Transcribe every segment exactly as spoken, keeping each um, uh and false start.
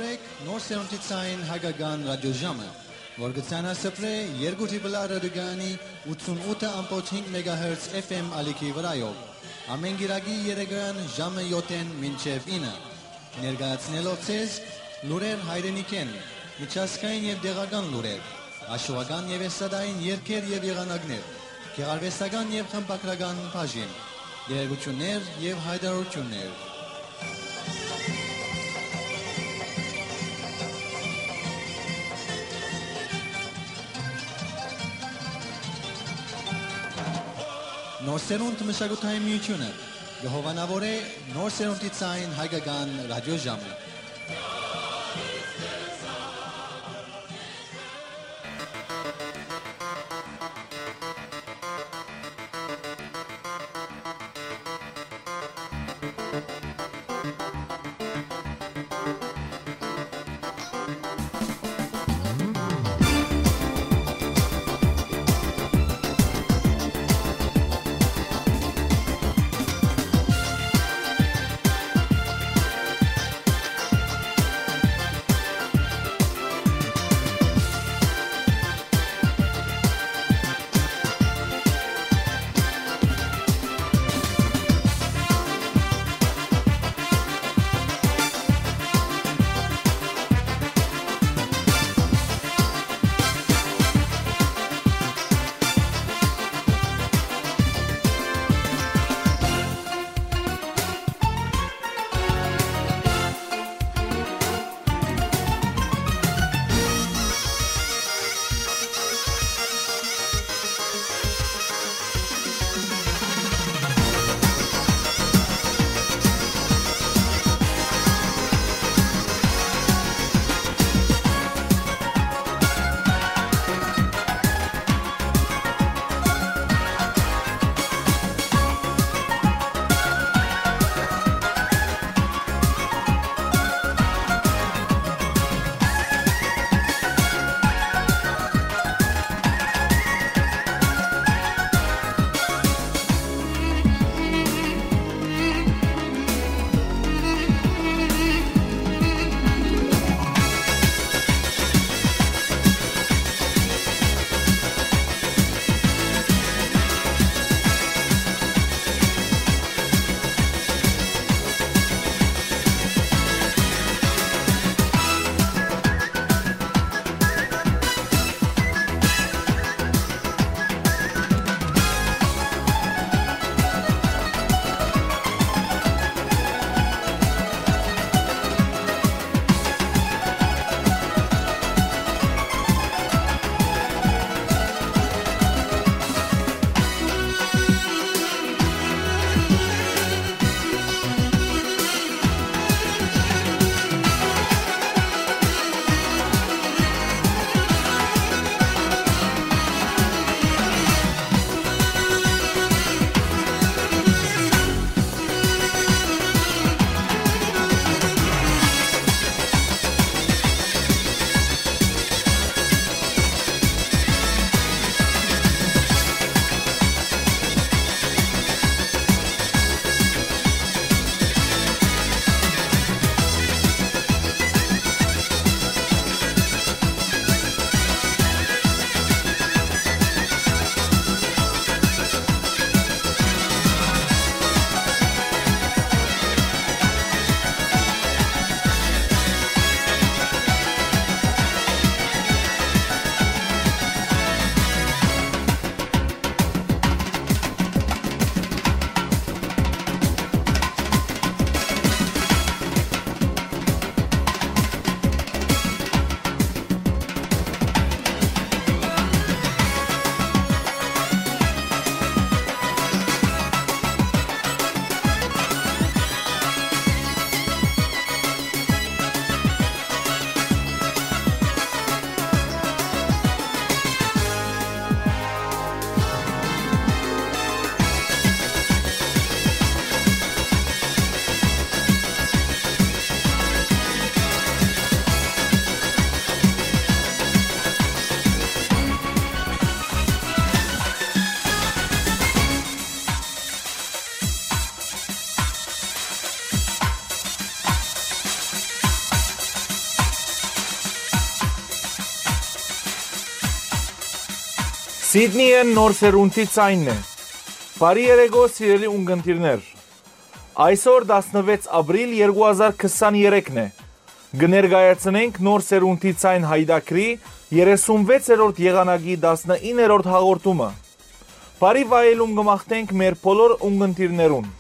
Նոր սերունդի ցային հայկական ռադիոժամը, որ կը ցանասփռէ երկու Triple R ռադիոկայանի ութսունութ ըմբոց հինգ մեգահերց F M ալիքի վրայով, ամէն կիրակի երեկոյեան ժամը յոթ մինչեւ ինը, ներկայացնելով ձեզ լուրեր հայրենիքէն, միջազգային եւ տեղական լուրեր, հաշուական եւ էստրադային երգեր եւ եղանակներ, գեղարուեստական եւ խմբագրական բաժին, տեղեկութիւններ եւ յայտարարութիւններ։ Նոր սերունդ մշակութային միութիւնը կը հովանաւորէ նոր սերունդի ցային հայկական ռադիոժամը։ Սիդնիէն նոր սերունդի ձայնն է։ Բարի երեկո, սիրելի ունկնդիրներ։ Այսօր տասնվեց ապրիլ երկու հազար քսանեթերթն է։ Կը ներկայացնենք նոր սերունդի ձայն յայտագրի երեսունվեցերորդ եղանակի տասնիններորդ հաղորդումը։ Բարի վայելում կը մաղթենք մեր բոլոր ունկնդիրներուն։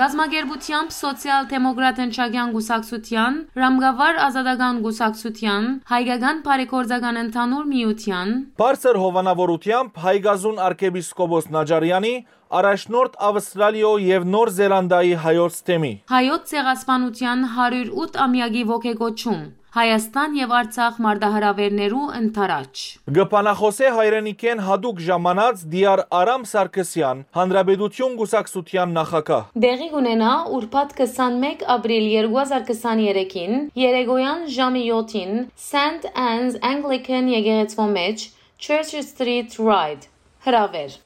Կազմակերպութեամբ Սոցիալ-դեմոկրատ ընչակեան կուսակցութեան, Ռամկավար ազատական կուսակցութեան, Հայկական բարեգործական ընդհանուր միութեան, Բարձր հովանաւորութեամբ Հայկազուն արքեպիսկոպոս Նաճարեանի, առաջնորդ Ավստրալիոյ եւ Նոր Զելանդիայի հայոց թեմի։ Հայոց ցեղասպանութեան հարիւր ութ ամեակի ոգեկոչում, Հայաստան եւ Արցախ մարտահրաւէրներու ընդառաջ։ Կը բանախօսէ հայրենիքէն յատուկ ժամանած Դիար Արամ Սարգսեան, Հանրապետություն կուսակցութեան նախագահ։ Տեղի կունենայ ուրբաթ քսանմէկ ապրիլ երկու հազար քսաներեքին, երեկոյան ժամը յոթին, Saint Anne's Anglican եկեղեցւոյ մէջ, Church Street Ryde։ Հրաւէր։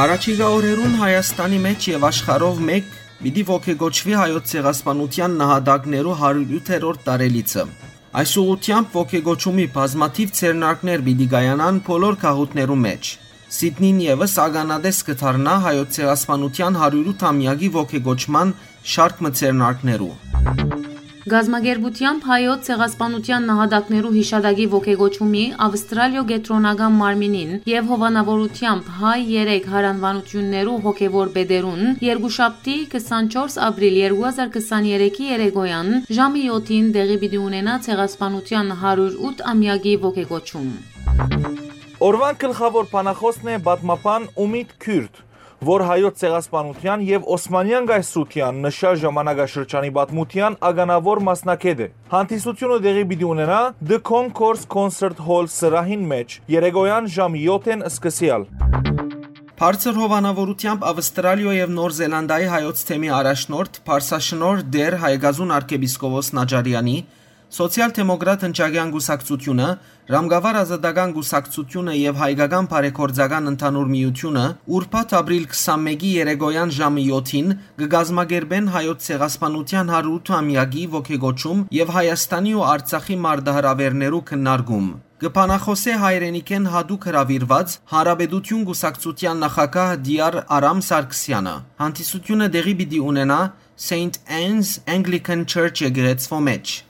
Յառաջիկայ օրերուն Հայաստանի մէջ եւ աշխարհով մէկ պիտի ոգեկոչուի Հայոց ցեղասպանութեան նահատակներու հարիւր ութերորդ տարելիցը։ Այս ուղղութեամբ ոգեկոչումի բազմաթիւ ձեռնարկներ պիտի կայանան բոլոր գաղութներու մէջ։ Սիդնին եւս ականատես կը դառնայ Հայոց ցեղասպանութեան հարիւր ութ ամեակի ոգեկոչման շարք մը ձեռնարկներու։ Կազմակերպութեամբ Հայոց ցեղասպանութեան նահատակներու յիշատակի ոգեկոչումի Ավստրալիոյ կեդրոնական մարմինին եւ հովանաւորութեամբ հայ երեք յարանուանութիւններու հոգեւոր պետերուն երկուշաբթի, քսանչորս ապրիլ երկու հազար քսաներեքի երեկոյեան ժամը յոթին տեղի պիտի ունենայ ցեղասպանութեան հարիւր ութ ամեակի ոգեկոչում։ Օրուան գլխաւոր բանախօսն է պատմաբան Ումիտ Քիւրտ, որ Հայոց ցեղասպանութեան եւ Օսմանեան կայսրութեան նշան ժամանակաշրջանի պատմութեան ականաւոր մասնագէտ է։ Հանդիսութիւնը տեղի պիտի ունենայ The Concourse Concert Hall սրահին մէջ, երեկոյեան ժամ յոթ-ին սկսեալ։ Բարձր հովանաւորութեամբ Ավստրալիոյ եւ Նոր Զելանդիայի հայոց թեմի առաջնորդ, փարսաշնորհ Տէր Հայկազուն արքեպիսկոպոս Նաճարեանի, Սոցիալ-դեմոկրատ ընչակեան կուսակցութիւնը, Ռամկավար ազատական կուսակցութիւնը եւ Հայկական բարեգործական ընդհանուր միութիւնը ուրբաթ ապրիլ քսանմէկի երեկոյան ժամը յոթին կը կազմակերպեն Հայոց ցեղասպանութեան հարիւր ութ ամեակի ոգեկոչում եւ Հայաստանի ու Արցախի մարտահրաւէրներու քննարկում։ Կը բանախօսէ հայրենիքէն յատուկ հրաւիրուած Հանրապետութիւն կուսակցութեան նախագահ Տիար Արամ Սարգսեանը։ Հանդիսութիւնը տեղի պիտի ունենայ Սեյնթ Անն's Anglican Church եկեղեցւոյ մէջ։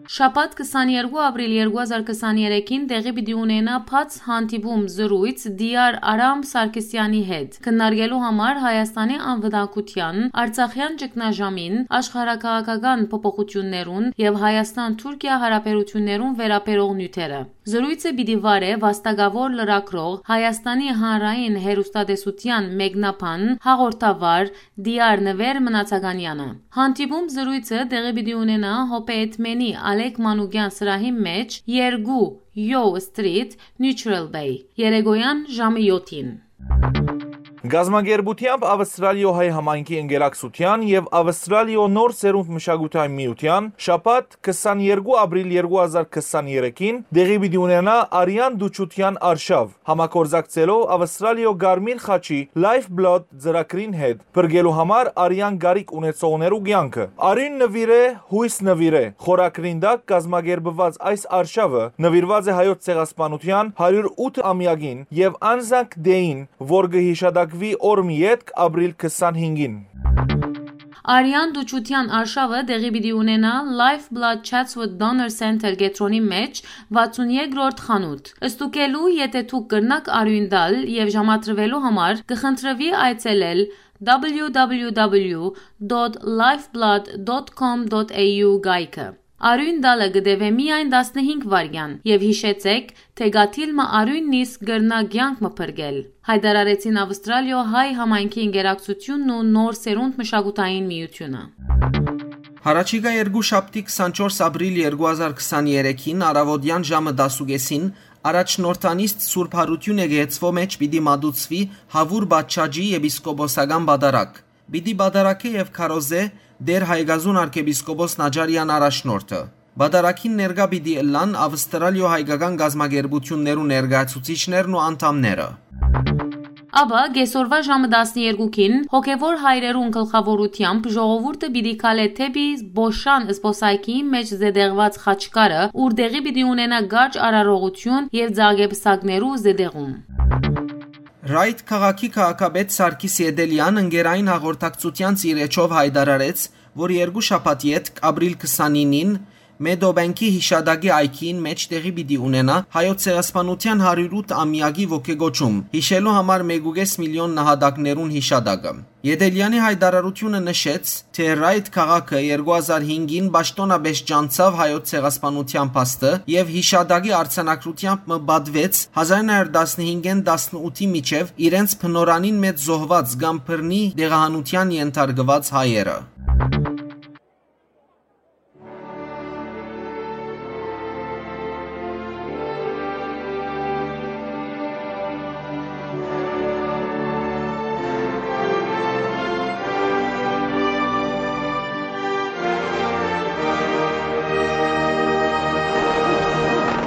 Շաբաթ քսաներկու ապրիլ երկու հազար քսաներեքին տեղի պիտի ունենայ բաց հանդիպում, զրոյց Տիար Արամ Սարգսեանի հետ, քննարկելու համար Հայաստանի անվտանգութեան, Արցախեան ճգնաժամին, աշխարհաքաղաքական փոփոխութիւններուն եւ Հայաստան-Թուրքիա յարաբերութիւններուն վերաբերող նիւթերը։ Զրոյցը պիտի վարէ վաստակաւոր լրագրող, Հայաստանի հանրային հեռուստատեսութեան մեկնաբան, հաղորդավար Տիար Նուեր Մնացականեանը։ Հանդիպում զրոյցը տեղի պիտի ունենայ Հոբեյթ Մենի Ալեք Մանուկեան սրահին մէջ, երկու Յոյ Սթրիթ, Նիւթրալ Բեյ, երեկոյան ժամը յոթին։ Գազམ-ակերպութեամբ Ավստրալիոյ հայ համայնքի ընկերակցութեան եւ Ավստրալիոյ նոր սերունդ մշակութային միութեան շաբաթ քսաներկու ապրիլ երկու հազար քսաներեքին տեղի պիտի ունենայ արեան դուչութեան արշաւ, համագործակցելով Ավստրալիոյ Կարմիր խաչի Lifeblood ծրագրին հետ, փրկելու համար արեան կարիք ունեցողներու կեանքը։ Արիւն նուիրէ, յոյս նուիրէ խորագրին տակ կազմակերպուած այս արշաւը նուիրուած է հայոց ցեղասպանութեան հարիւր ութ ամեակին եւ անզանկ դէին, որ կը յիշատակուի օր մը ետք, ապրիլ քսանհինգին։ Արեան դուչութեան արշաւը տեղի պիտի ունենայ Lifeblood Chatswood Donor Center կեդրոնի մէջ, վաթսուն երկրորդ խանութ։ Ստուգելու, եթէ դուք կրնաք արիւն տալ եւ ժամադրուելու համար, կը խնդրուի այցելել www.lifeblood.com.au կայքը։ Արիւն տալը կը տեւէ միայն տասնհինգ վայրկեան եւ յիշեցէք, թէ կաթիլ մը արիւն նիսկ կրնայ կեանք մը փրկել, հայտարարեցին Ավստրալիոյ հայ համայնքի ընկերակցութիւնն ու նոր սերունդ մշակութային միութիւնը։ Յառաջիկայ երկու շաբթի քսանչորս ապրիլ երկու հազար քսաներեքին առաւօտեան ժամը տասուկէսին առաջնորդանիստ Սուրբ Յարութիւն եկեղեցւոյ մէջ պիտի մատուցուի Հաւուր Բաչաճի եպիսկոպոսական պատարագ։ Պիտի պատարագէ եւ քարոզէ Տէր Հայկազուն արքեպիսկոպոս Նաճարեան առաջնորդը։ Պատարագին ներկայ պիտի ըլլան Ավստրալիոյ հայկական կազմակերպութիւններու ներկայացուցիչներն ու անդամները։ Ապա կեսօրուայ ժամը տասներկուքին հոգեւոր հայրերուն գլխաւորութեամբ ժողովուրդը պիտի քալէ դէպի Բոշան զբօսայգիի մէջ զետեղուած խաչքարը, ուր տեղի պիտի ունենայ կարճ արարողութիւն եւ ծաղկեպսակներու զետեղում։ Ռայթ քաղաքի քաղաքապետ Սարգիս Եդելեան ընկերային հաղորդակցութեանց իր էջով յայտարարեց, որ երկու շաբաթ ետք, ապրիլ քսանինին, Մեդոբենքի յիշատակի այգիին մէջ տեղի պիտի ունենայ հայոց ցեղասպանութեան հարիւր ութ ամեակի ոգեկոչում, յիշելու համար մէկ ու կէս միլիոն նահատակներուն յիշատակը։ Եդելեանի յայտարարութիւնը նշեց, թէ Ռայթ քաղաքը երկու հազար հինգին պաշտօնապէս ճանչցաւ հայոց ցեղասպանութեան փաստը եւ յիշատակի արձանագրութեամբ մը պատուեց հազար նոյ հարիւր տասնհինգէն տասնութի միջեւ իրենց բնօրրանին մէջ զոհուած կամ բռնի տեղահանութեան ենթարկուած հայերը։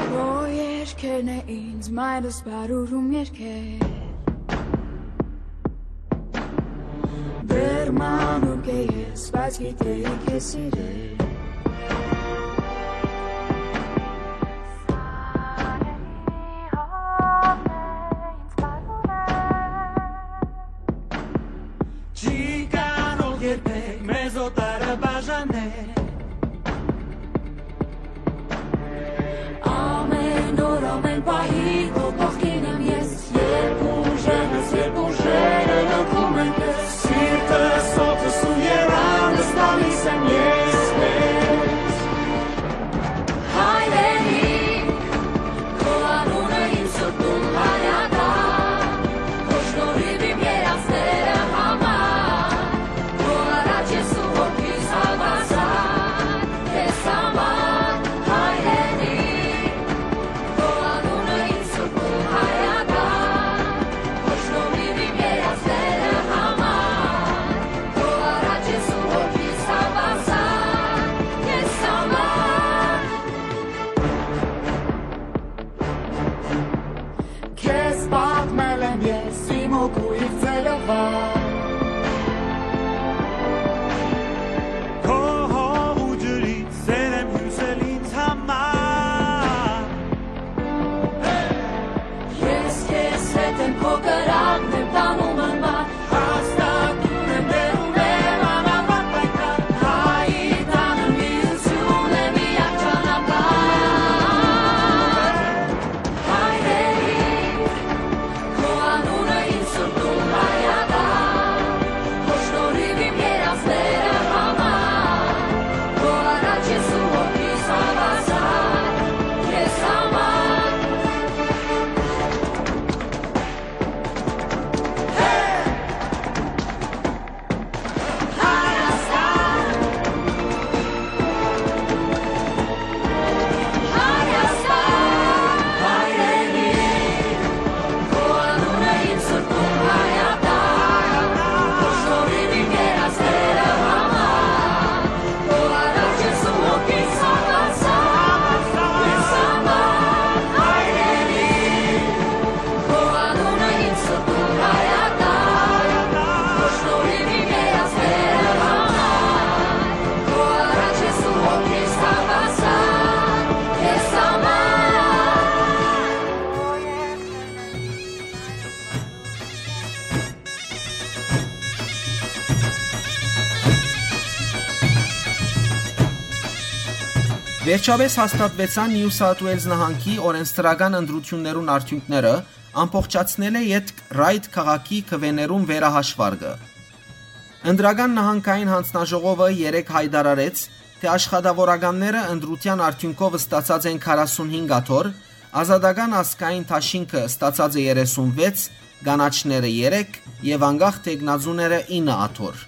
Քո երկերն է ինձ մայրս բարուրում երկեր։ Դեռ մանուկ է ես, բայց գիտեի քեզ սիրել։ Չի կարող երբեք մեզ օտարը բաժանել։ Ամեն օր, ամեն պահի քո կողքին եմ ես, երբ ուժերս, երբ ուժերը լքում են քեզ, սիրտս, օդս ու եռանդս տալիս եմ ես, Վերջապէս հաստատուեցան Նիու Սաութ Ուէյլզ նահանգի օրենսդրական ընտրութիւններուն արդիւնքները, ամբողջացնելէ ետք Ռայդ քաղաքի քուէներուն վերահաշվարկը։ Ընտրական նահանգային յանձնաժողովը երեկ յայտարարեց, թէ աշխատաւորականները ընտրութեան արդիւնքով ստացած են քառասունհինգ աթոռ, Ազատական ազգային դաշինքը ստացած է երեսունվեց, կանաչները՝ երեք եւ անկախ թեկնածուները՝ ինը աթոռ։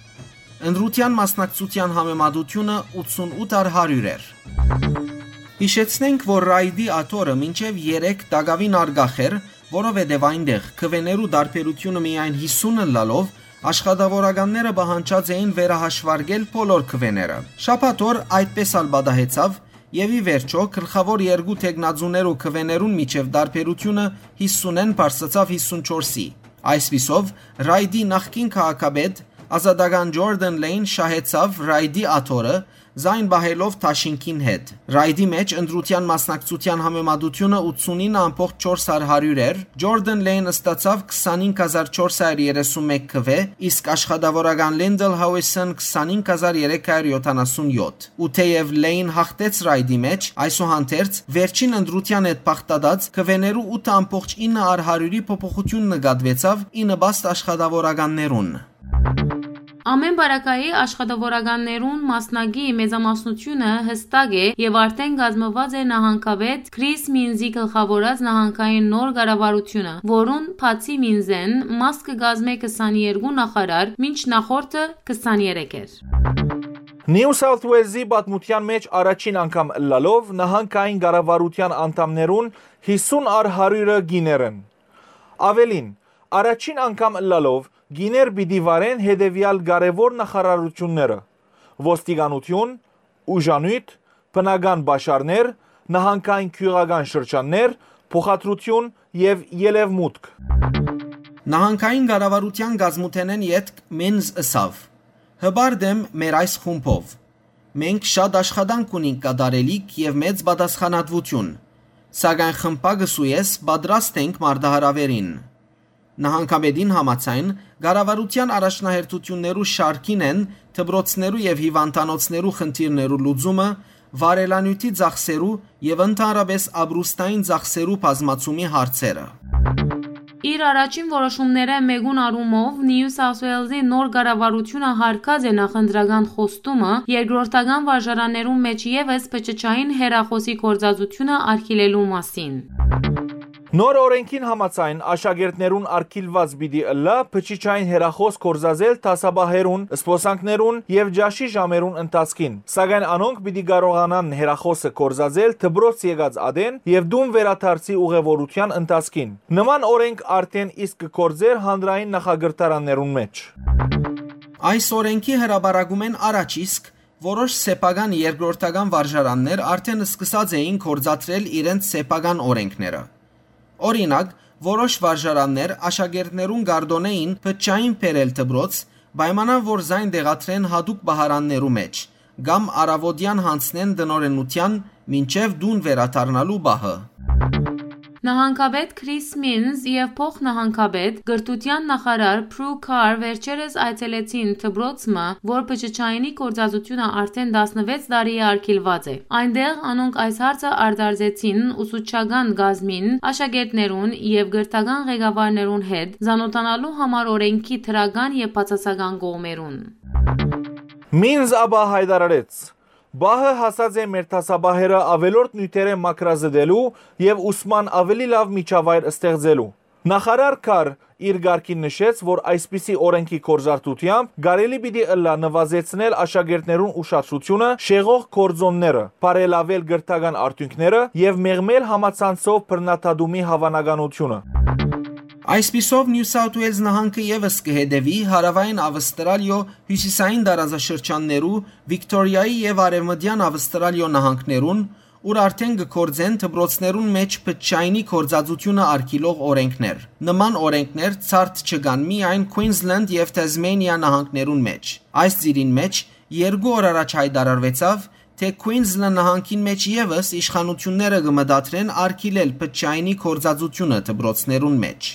Ընտրութեան մասնակցութեան համեմատութիւնը ութսունութ առ հարիւր էր։ Յիշեցնենք, որ Ռայդի աթոռը մինչեւ երեկ տակաւին առկախ էր, որովհետեւ այնտեղ քուէներու տարբերութիւնը միայն յիսուն ըլլալով, աշխատաւորականները պահանջած էին վերահաշվարկել բոլոր քուէները։ Շաբաթօր այդպես ալ պատահեցաւ, եւ ի վերջոյ գլխաւոր երկու թեկնածուներու քուէներուն միջեւ տարբերութիւնը յիսունէն բարձրացաւ յիսունչորսի։ Այսպիսով, Ռայդի նախկին քաղաքապետ, ազատական Ջորդան Լեյն շահեցաւ Ռայդի աթոռը՝ զայն պահելով դաշինքին հետ։ Ռայդի մէջ ընտրութեան մասնակցութեան համեմատութիւնը ութսունինը ամբողջ չորս հարիւր էր, Ջորդան Լեյն ստացաւ քսանինք հազար չորս հարիւր երեսունմէկ քուէ, իսկ աշխատաւորական Լինդլ Հաուիսն քսանինք հազար երեք հարիւր յոթանասունյոթ։ Ու թէեւ Լեյն յաղթեց Ռայդի մէջ, այսուհանդերձ, վերջին ընտրութեան հետ բաղդատած քուէներու ութ ամբողջ ինը առ հարիւրի փոփոխութիւն նկատուեցաւ ի նպաստ աշխատաւորականներուն։ Ամէն պարագայի, աշխատաւորականներուն մասնակի մեծամասնութիւնը յստակ է եւ արդէն կազմուած է նահանգապետ Քրիս Մինզի գլխաւորած նահանգային նոր կառավարութիւնը, որուն, բացի Մինզէն, մաս կը կազմէ քսաներկու նախարար, մինչ նախորդը քսաներեք էր։ Նիու Սաութ Ուէյլզի պատմութեան մէջ առաջին անգամ ըլլալով նահանգային կառավարութեան անդամներուն յիսուն առ հարիւրը կիներ են։ Աւելին, առաջին անգամ ըլլալով կիներ պիտի վարեն հետեւեալ կարեւոր նախարարութիւնները՝ ոստիկանութիւն, ուժանիւթ, բնական պաշարներ, նահանգային գիւղական շրջաններ, փոխադրութիւն եւ ելեւմուտք։ Նահանգային կառավարութեան կազմութենէն ետք Մինզ ըսաւ. «Հպարտ եմ մեր այս խումբով։ Մենք շատ աշխատանք ունինք կատարելիք եւ մեծ պատասխանատուություն, սակայն խմբակս ու ես պատրաստ ենք մարտահրաւերին»։ Նահանգապետին համաձայն, կառավարութեան առաջնահերթութիւններու շարքին են դպրոցներու եւ հիւանդանոցներու խնդիրներու լուծումը, վարելանիւթի ծախսերու եւ ընդհանրապէս ապրուստային ծախսերու բազմացումի հարցերը։ Իր առաջին որոշումներէ մէկուն առումով Նիու Սաութ Ուէյլզի նոր կառավարութիւնը յարգած է նախընտրական խոստումը երկրորդական վարժարաններուն մէջ եւս փչջային հեռախօսի գործածութիւնը արգիլելու մասին։ Նոր օրէնքին համաձայն, աշակերտներուն արգիլուած պիտի ըլլայ փչջային հեռախօս գործածել դասապահերուն, զբօսանքներուն եւ ճաշի ժամերուն ընթացքին, սակայն անոնք պիտի կարողանան հեռախօսը գործածել դպրոց եկած ատեն եւ տուն վերադարձի ուղեւորութեան ընթացքին։ Նման օրէնք արդէն իսկ կը գործէր հանրային նախակրթարաններուն մէջ։ Այս օրէնքի հրապարակումէն առաջ իսկ որոշ սեփական երկրորդական վարժարաններ արդէն սկսած էին գործադրել իրենց սեփական օրէնքները։ Օրինակ, որոշ վարժարաններ աշակերտներուն կ'արտօնէին փչջային բերել դպրոց, պայմանով որ զայն տեղադրեն յատուկ պահարաններու մէջ, կամ առաւօտեան յանձնեն տնօրէնութեան մինչեւ տուն վերադառնալու պահը։ Նահանգապետ Քրիս Մինզ եւ փոխնահանգապետ, կրթութեան նախարար Պրու Քար վերջերս այցելեցին դպրոց մը, որ փչջայինի գործածութիւնը արդէն տասնվեց տարի է արգիլուած է։ Այնտեղ անոնք այս հարցը արտարծեցին ուսուցչական կազմին, աշակերտներուն եւ կրթական ղեկավարներուն հետ, ծանօթանալու համար օրէնքի դրական եւ բացասական կողմերուն։ Մինզ ապա յայտարարեց. «Պահը հասած է մեր դասապահերը աւելորդ նիւթերէ մաքրազդելու եւ ուսման աւելի լաւ միջավայր ստեղծելու»։ Նախարար Քար իր կարգին նշեց, որ այսպիսի օրէնքի գործարկութեամբ կարելի պիտի ըլլայ նուազեցնել աշակերտներուն ուշադրութիւնը շեղող գործօնները, բարելաւել կրթական արդիւնքները եւ մեղմել համացանցով բռնադատումի հաւանականությունը։ Այսպիսով, Նիու Սաութ Ուէյլզ նահանգը եւս կը հետեւի Հարաւային Ավստրալիոյ հիւսիսային տարածաշրջաններու, Վիկտորիայի եւ Արեւմտեան Ավստրալիոյ նահանգներուն, ուր արդէն կը գործեն դպրոցներուն մէջ փչջայինի գործածութիւնը արգիլող օրէնքներ։ Նման օրէնքներ ցարդ չկան միայն Քուինզլենդ եւ Թեզմենիա նահանգներուն մէջ։ Այս ծիրին մէջ երկու օր առաջ յայտարարուեցաւ, թէ Քուինզլենդ նահանգին մէջ եւս իշխանութիւնները կը մտադրեն արգիլել փչջայինի գործածութիւնը դպրոցներուն մէջ։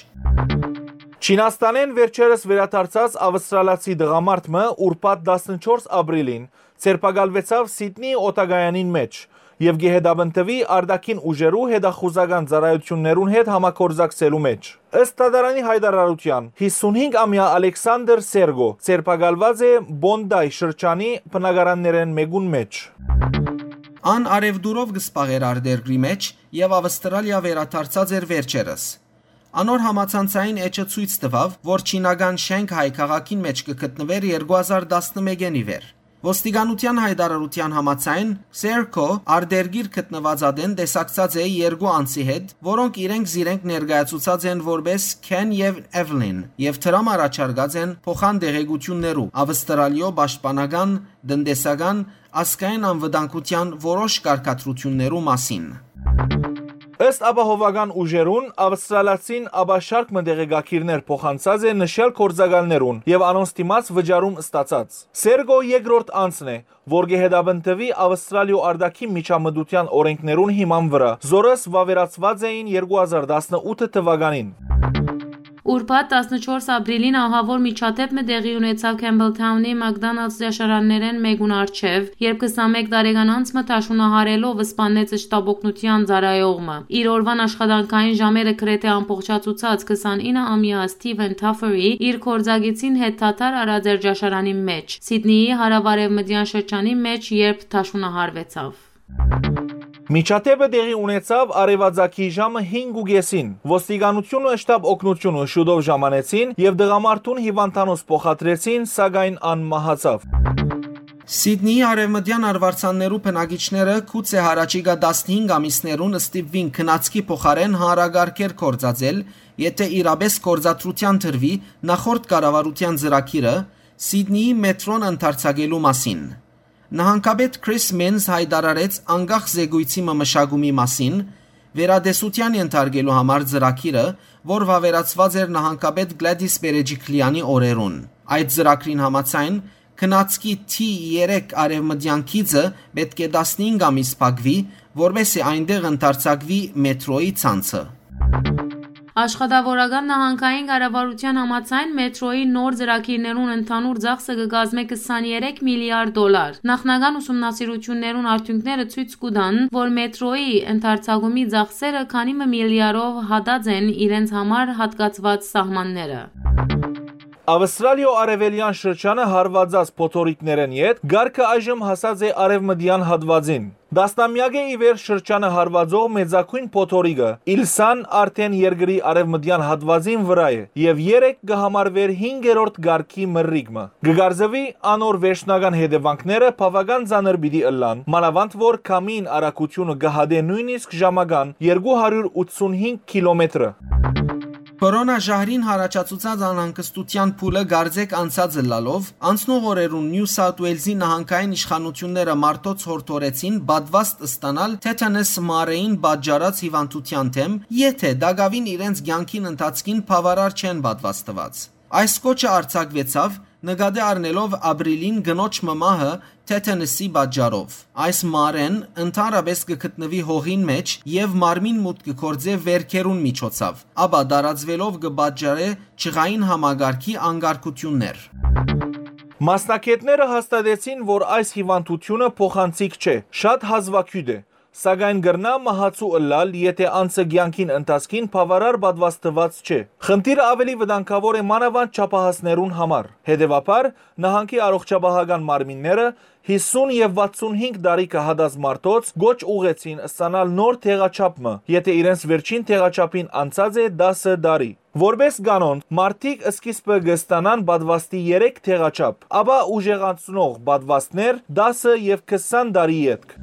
Չինաստանէն վերջերս վերադարձած ավստրալացի տղամարդ մը ուրբաթ տասնչորս ապրիլին ձերբակալուեցաւ Սիդնի օդակայանին մէջ, եւ կը հետապնդուի արտաքին ուժերու հետախուզական ծառայութիւններուն հետ համագործակցելու մէջ։ Ըստ դատարանի յայտարարութեան, յիսունհինգ ամեայ Ալեքսանդր Սերգո ձերբակալուած է Պոնտայ շրջանի բնակարաններէն մէկուն մէջ։ Ան առեւտուրով կը զբաղէր արտերկրի մէջ եւ Ավստրալիա վերադարձած էր վերջերս։ Անոր համացանցային էջը ցոյց տուաւ, որ չինական Շենգհայ քաղաքին մէջ կը գտնուէր երկու հազար տասնմէկէն ի վեր։ Ոստիկանութեան յայտարարութեան համաձայն, Սերգո արտերկիր գտնուած ատեն տեսակցած է երկու անձի հետ, որոնք իրենք զիրենք ներկայացուցած են որպէս Քեն եւ Էվլին, եւ դրամ առաջարկած են փոխան տեղեկութիւններու Ավստրալիոյ պաշտպանական, տնտեսական, ազգային անվտանգութեան որոշ կարգադրութիւններու մասին։ Ըստ ապահովական ուժերուն, ավստրալացին ապա շարք մը տեղեկագիրներ փոխանցած է նշյալ գործակալներուն եւ անոնց դիմաց վճարում ստացած։ Սերգո երկրորդ անձն է, որ կը հետապնդուի Ավստրալիոյ արտաքին միջամտութեան օրենքներուն հիման վրայ, զորս վաւերացուած էին երկու հազար տասնութ թուականին։ Ուրբաթ տասնչորս ապրիլին ահաւոր միջադէպ մը տեղի ունեցաւ Քեմբլթաունի McDonald's ճաշարաններէն մէկուն առջեւ, երբ քսանմէկ տարեկան անձ մը դաշունահարելով սպաննեց շտապօգնութեան ծառայող մը։ Իր օրուան աշխատանքային ժամերը գրեթէ ամբողջացուցած քսանինը ամեայ Սթիվեն Թաֆերի իր գործակիցին հետ դադար առած էր ճաշարանի մէջ, Սիդնիի հարաւարեւմտեան շրջանի մէջ, երբ դաշունահարուեցաւ։ Միջադէպը տեղի ունեցաւ արեւածագի ժամը հինգ ու կեսին։ Ոստիկանութիւնը շտապ օգնութիւնը շուտով ժամանեցին եւ տղամարդուն հիւանդանոց փոխադրեցին, սակայն ան մահացաւ։ Սիդնիի արեւմտեան արուարձաններու բնակիչները գուցե յառաջիկա տասնհինգ ամիսներուն ստիպուին քնածքի փոխարէն հանրակարգեր գործածել, եթէ իրապէս գործադրութեան դրուի նախորդ կառավարութեան ծրագիրը՝ Սիդնիի մեթրոն ընդարձակելու մասին։ Նահանգապետ Քրիս Մինզ յայտարարեց անկախ զեկոյցի մը մշակումի մասին, վերատեսութեան ենթարկելու համար ծրագիրը, որ վաւերացուած էր նահանգապետ Գլադիս Պերեջիքլեանի օրերուն։ Այդ ծրագրին համաձայն, քնածքի T երեք արեւմտեան գիծը պէտք է տասնհինգ ամիս փակուի, որպէս զի այնտեղ ընդարձակուի մեթրոյի ցանցը։ Աշխատաւորական նահանգային կառավարութեան համաձայն, մեթրոյի նոր ծրագիրներուն ընդհանուր ծախսը կը կազմէ քսաներեք միլիարդ դոլար։ Նախնական ուսումնասիրութիւններուն արդիւնքները ցոյց կու տան, որ մեթրոյի ընդարձակումի ծախսերը քանի մը միլիարով հատած են իրենց համար հատկացուած սահմանները։ Ավստրալիոյ արեւելեան շրջանը հարուածած փոթորիկներէն յետ կարգը այժմ հասած է արեւմտեան հատուածին։ Տասնամեակ է ի վեր շրջանը հարուածող մեծագոյն փոթորիկը՝ Իլսան, արդէն երկրի արեւմտեան հատուածին վրայ է եւ երեկ կը համարուէր հինգերորդ կարգի մրրիկ մը։ Կը կարծուի, անոր վերջնական հետեւանքները բաւական ծանր պիտի ըլլան, մանաւանդ որ քամին արագութիւնը կը հատէ նոյնիսկ ժամական երկու հարիւր ութսունհինգ կիլոմետրը։ Կորոնա ժահրին յառաջացուցած անհանգստութեան փուլը կարծէք անցած ըլլալով, անցնող օրերուն Նիու Սաութ Ուելզի նահանգային իշխանութիւնները մարդոց յորդորեցին պատուաստ ստանալ թեթանս մարեին պատճառած հիւանդութեան դէմ, եթէ տակաւին իրենց կեանքին ընթացքին բաւարար չեն պատուաստուած։ Այս կոչը արձակուեցաւ՝ նկատի առնելով ապրիլին կնոջ մը մահը թեթանսի պատճառով։ Այս մարեն ընդհանրապէս կը գտնուի հողին մէջ եւ մարմին մուտք կը գործէ վերքերուն միջոցաւ, ապա տարածուելով կը պատճառէ ջղային համակարգի անկարգութիւններ։ Մասնագէտները հաստատեցին, որ այս հիւանդութիւնը փոխանցիկ չէ, շատ հազուագիւտ է, սակայն կրնայ մահացու ըլլալ, եթէ անձը կեանքին ընթացքին բաւարար պատուաստուած չէ։ Խնդիրը աւելի վտանգաւոր է մանաւանդ չափահասներուն համար։ Հետեւաբար, նահանգի առողջապահական մարմինները յիսուն եւ վաթսունհինգ տարի կը հատած մարդոց կոչ ուղղեցին ստանալ նոր դեղաչափ մը, եթէ իրենց վերջին դեղաչափին անցած է տասը տարի։ Որպէս կանոն, մարդիկ սկիզբը կը ստանան պատուաստի երեք դեղաչափ, ապա ուժեղացնող պատուաստներ՝ տասը եւ քսան տարի ետք։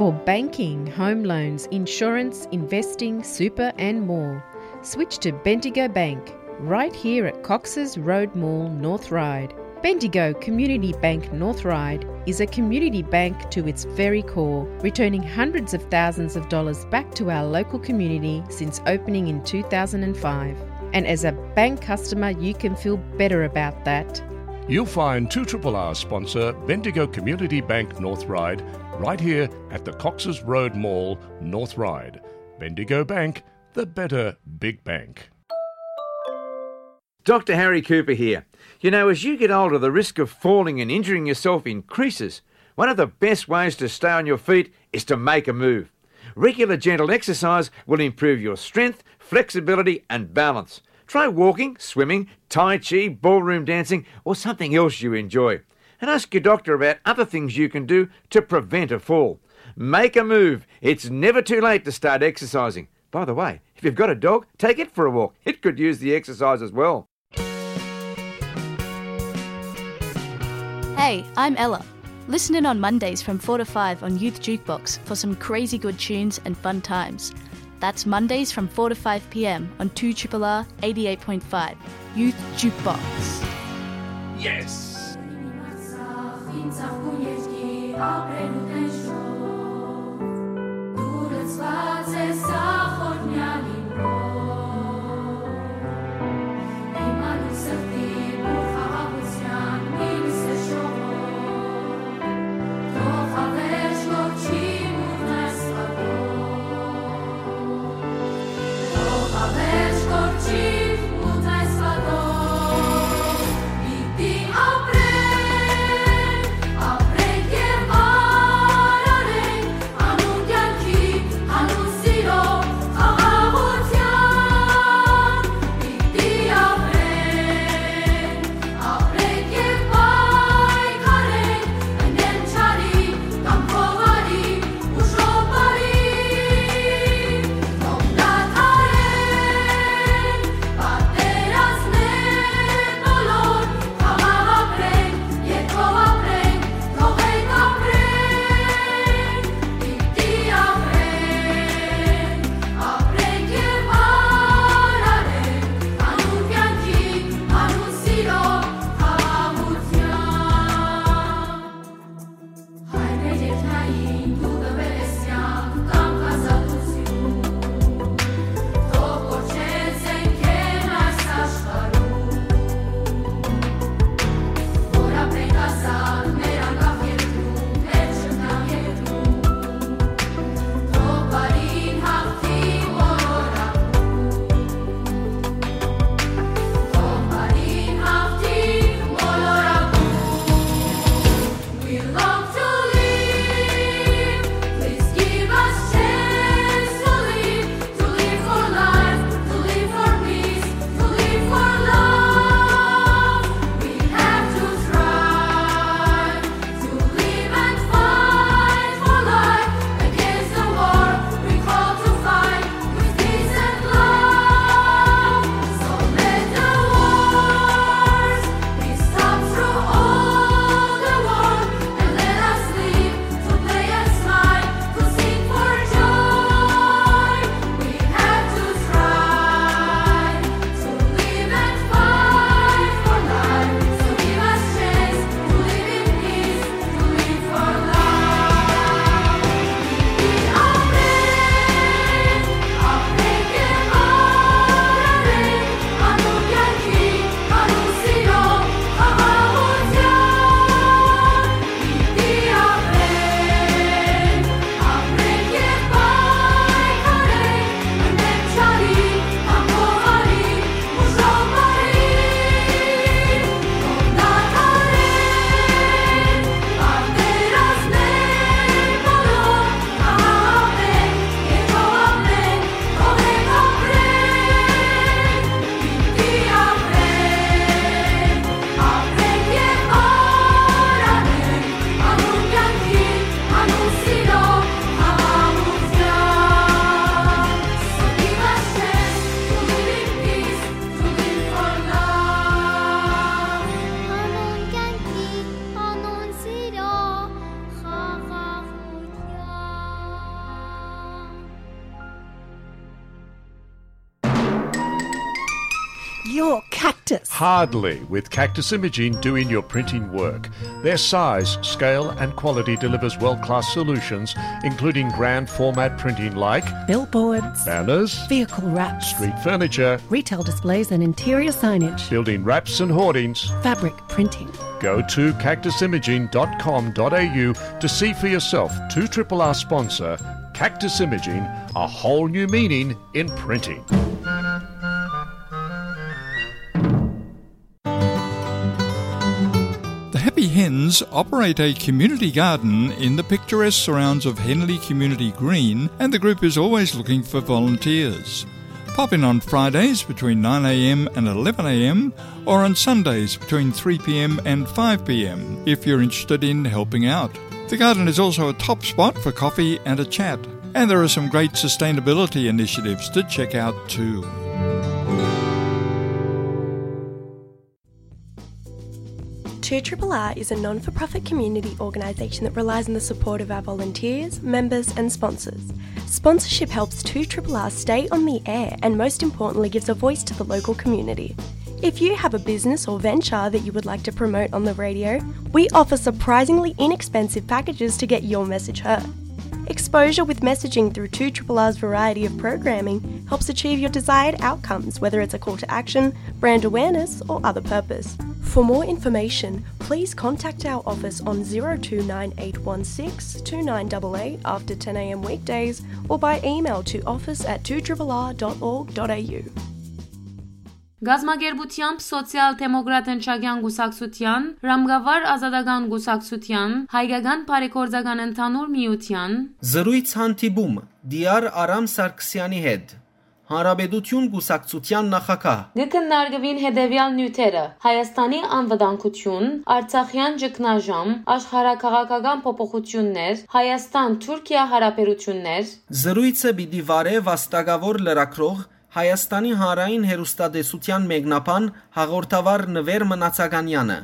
For banking, home loans, insurance, investing, super, and more, switch to Bendigo Bank, right here at Cox's Road Mall, North Ryde. Bendigo Community Bank North Ryde is a community bank to its very core, returning hundreds of thousands of dollars back to our local community since opening in two thousand and five. And as a bank customer, you can feel better about that. You'll find two triple R sponsor Bendigo Community Bank North Ryde right here at the Cox's Road Mall, North Ryde. Bendigo Bank, the better big bank. Doctor Harry Cooper here. You know, as you get older, the risk of falling and injuring yourself increases. One of the best ways to stay on your feet is to make a move. Regular gentle exercise will improve your strength, flexibility, and balance. Try walking, swimming, tai chi, ballroom dancing, or something else you enjoy. And ask your doctor about other things you can do to prevent a fall. Make a move. It's never too late to start exercising. By the way, if you've got a dog, take it for a walk. It could use the exercise as well. Hey, I'm Ella. Listen in on Mondays from four to five on Youth Jukebox for some crazy good tunes and fun times. That's Mondays from four to five p m on two triple R eighty-eight point five, Youth Jukebox. Yes! Your Cactus. Hardly, with Cactus Imaging doing your printing work. Their size, scale, and quality delivers world class solutions, including grand format printing like billboards, banners, vehicle wraps, street furniture, retail displays, and interior signage, building wraps and hoardings, fabric printing. Go to cactusimaging.com.au to see for yourself two triple R sponsor Cactus Imaging, a whole new meaning in printing. The Happy Hens operate a community garden in the picturesque surrounds of Henley Community Green, and the group is always looking for volunteers. Pop in on Fridays between nine a m and eleven a m, or on Sundays between three p m and five p m if you're interested in helping out. The garden is also a top spot for coffee and a chat, and there are some great sustainability initiatives to check out too. Two R R R is a non for profit community organisation that relies on the support of our volunteers, members, and sponsors. Sponsorship helps two R R R stay on the air and, most importantly, gives a voice to the local community. If you have a business or venture that you would like to promote on the radio, we offer surprisingly inexpensive packages to get your message heard. Exposure with messaging through two R R R's variety of programming helps achieve your desired outcomes, whether it's a call to action, brand awareness, or other purpose. For more information, please contact our office on zero two nine eight one six two nine eight eight after ten a m weekdays or by email to office at two R R R dot org dot a u. Գազམ-ակերպութեամբ Սոցիալ-դեմոկրատ ընչակեան կուսակցութեան, Ռամկավար ազատական կուսակցութեան, Հայկական բարեգործական ընդհանուր միութեան Զրոյց հանդիպում Դիար Արամ Սարգսեանի հետ, Հանրապետություն կուսակցութեան նախագահ։ Կը քննարկուին հետեւեալ նիւթերը՝ Հայաստանի անվտանգություն, Արցախեան ճգնաժամ, աշխարհաքաղաքական փոփոխութիւններ, Հայաստան-Թուրքիա հարաբերութիւններ։ Զրոյցը պիտի վարէ վաստակաւոր լրագրող, Հայաստանի հանրային հեռուստատեսութեան մեկնաբան հաղորդավար Նուէր Մնացականեանը,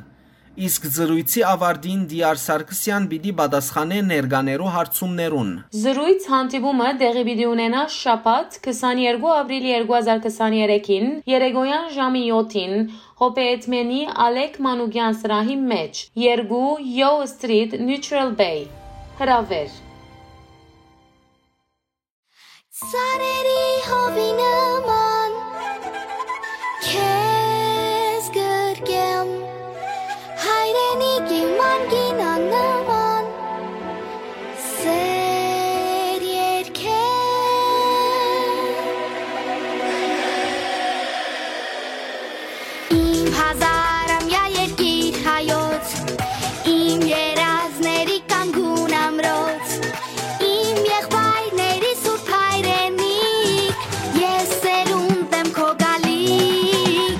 իսկ զրոյցի ավարտին Դիար Սարգսեան պիտի պատասխանէ ներկաներու հարցումներուն։ Զրոյց հանդիպումը տեղի պիտի ունենայ շաբաթ, քսաներկու ապրիլ երկու հազար քսաներեքին, երեկոյան ժամի յոթին, Հոբեյեդմենի Ալեք Մանուկեան սրահի մէջ, երկու Yo Street, Neutral Bay։ Հրաւէր։ Ծառերի հովի նման քեզ գրկեմ, հայրենիքի մանգին աննման սեր երկեմ։ Իմ հազարամյա երկիր հայոց, իմ երազների կանգուն ամրոց, իմ եղբայրների սուրբ հայրենիք, ես սերունդ եմ քո գալիք։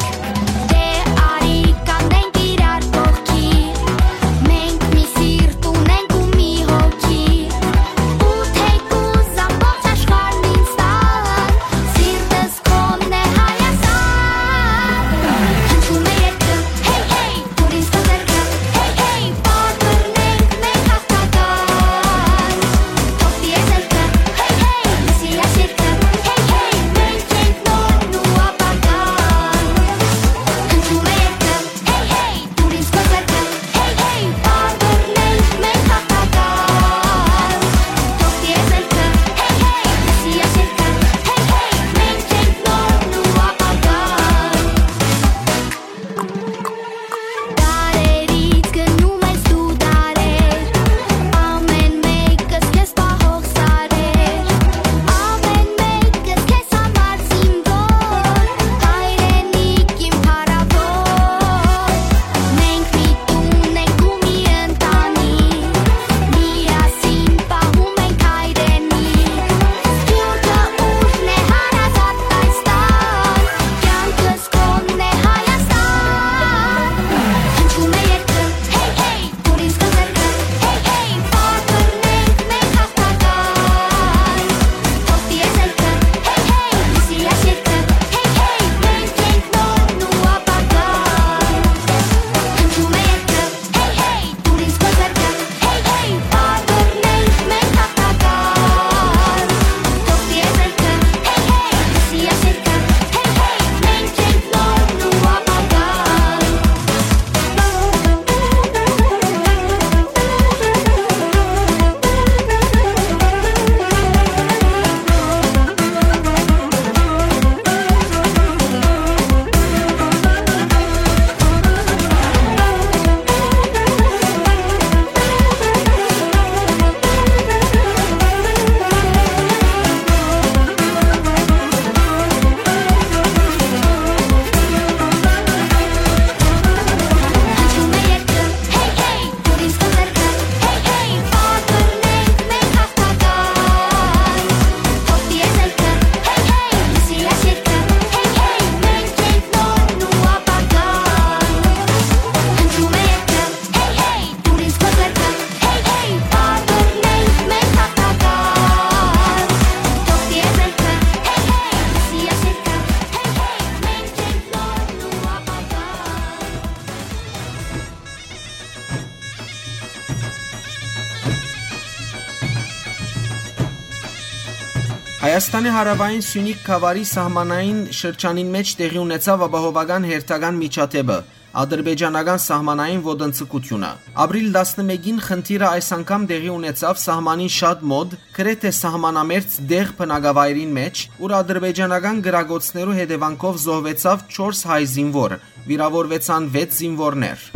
Հայաստանի հարաւային Սիւնիք գաւառի սահմանային շրջանին մէջ տեղի ունեցաւ ապահովական հերթական միջադէպը՝ ադրբեջանական սահմանային ոտնձգութիւնը։ Ապրիլ տասնմէկին խնդիրը այս անգամ տեղի ունեցաւ սահմանին շատ մօտ, գրեթէ սահմանամերձ դեղ բնակավայրին մէջ, ուր ադրբեջանական կրակոցներու հետեւանքով զոհուեցաւ չորս հայ զինուոր, վիրաւորուեցան վեց զինուորներ։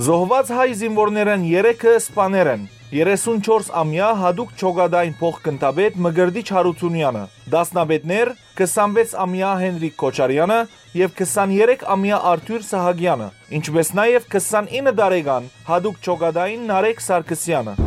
Զոհուած հայ զինուորներէն երեքը սպաներ են։ Երեսունչորս ամեայ յատուկ Չոկատային փոխգնդապետ Մկրտիչ Յարութունեանը, դասնապետներ՝ քսանվեց ամեայ Հենրիկ Քոչարեանը եւ քսաներեք ամեայ Արթուր Սահակեանը, ինչպէս նաեւ քսանինը տարեկան յատուկ Չոկատային Նարեկ Սարգսեանը։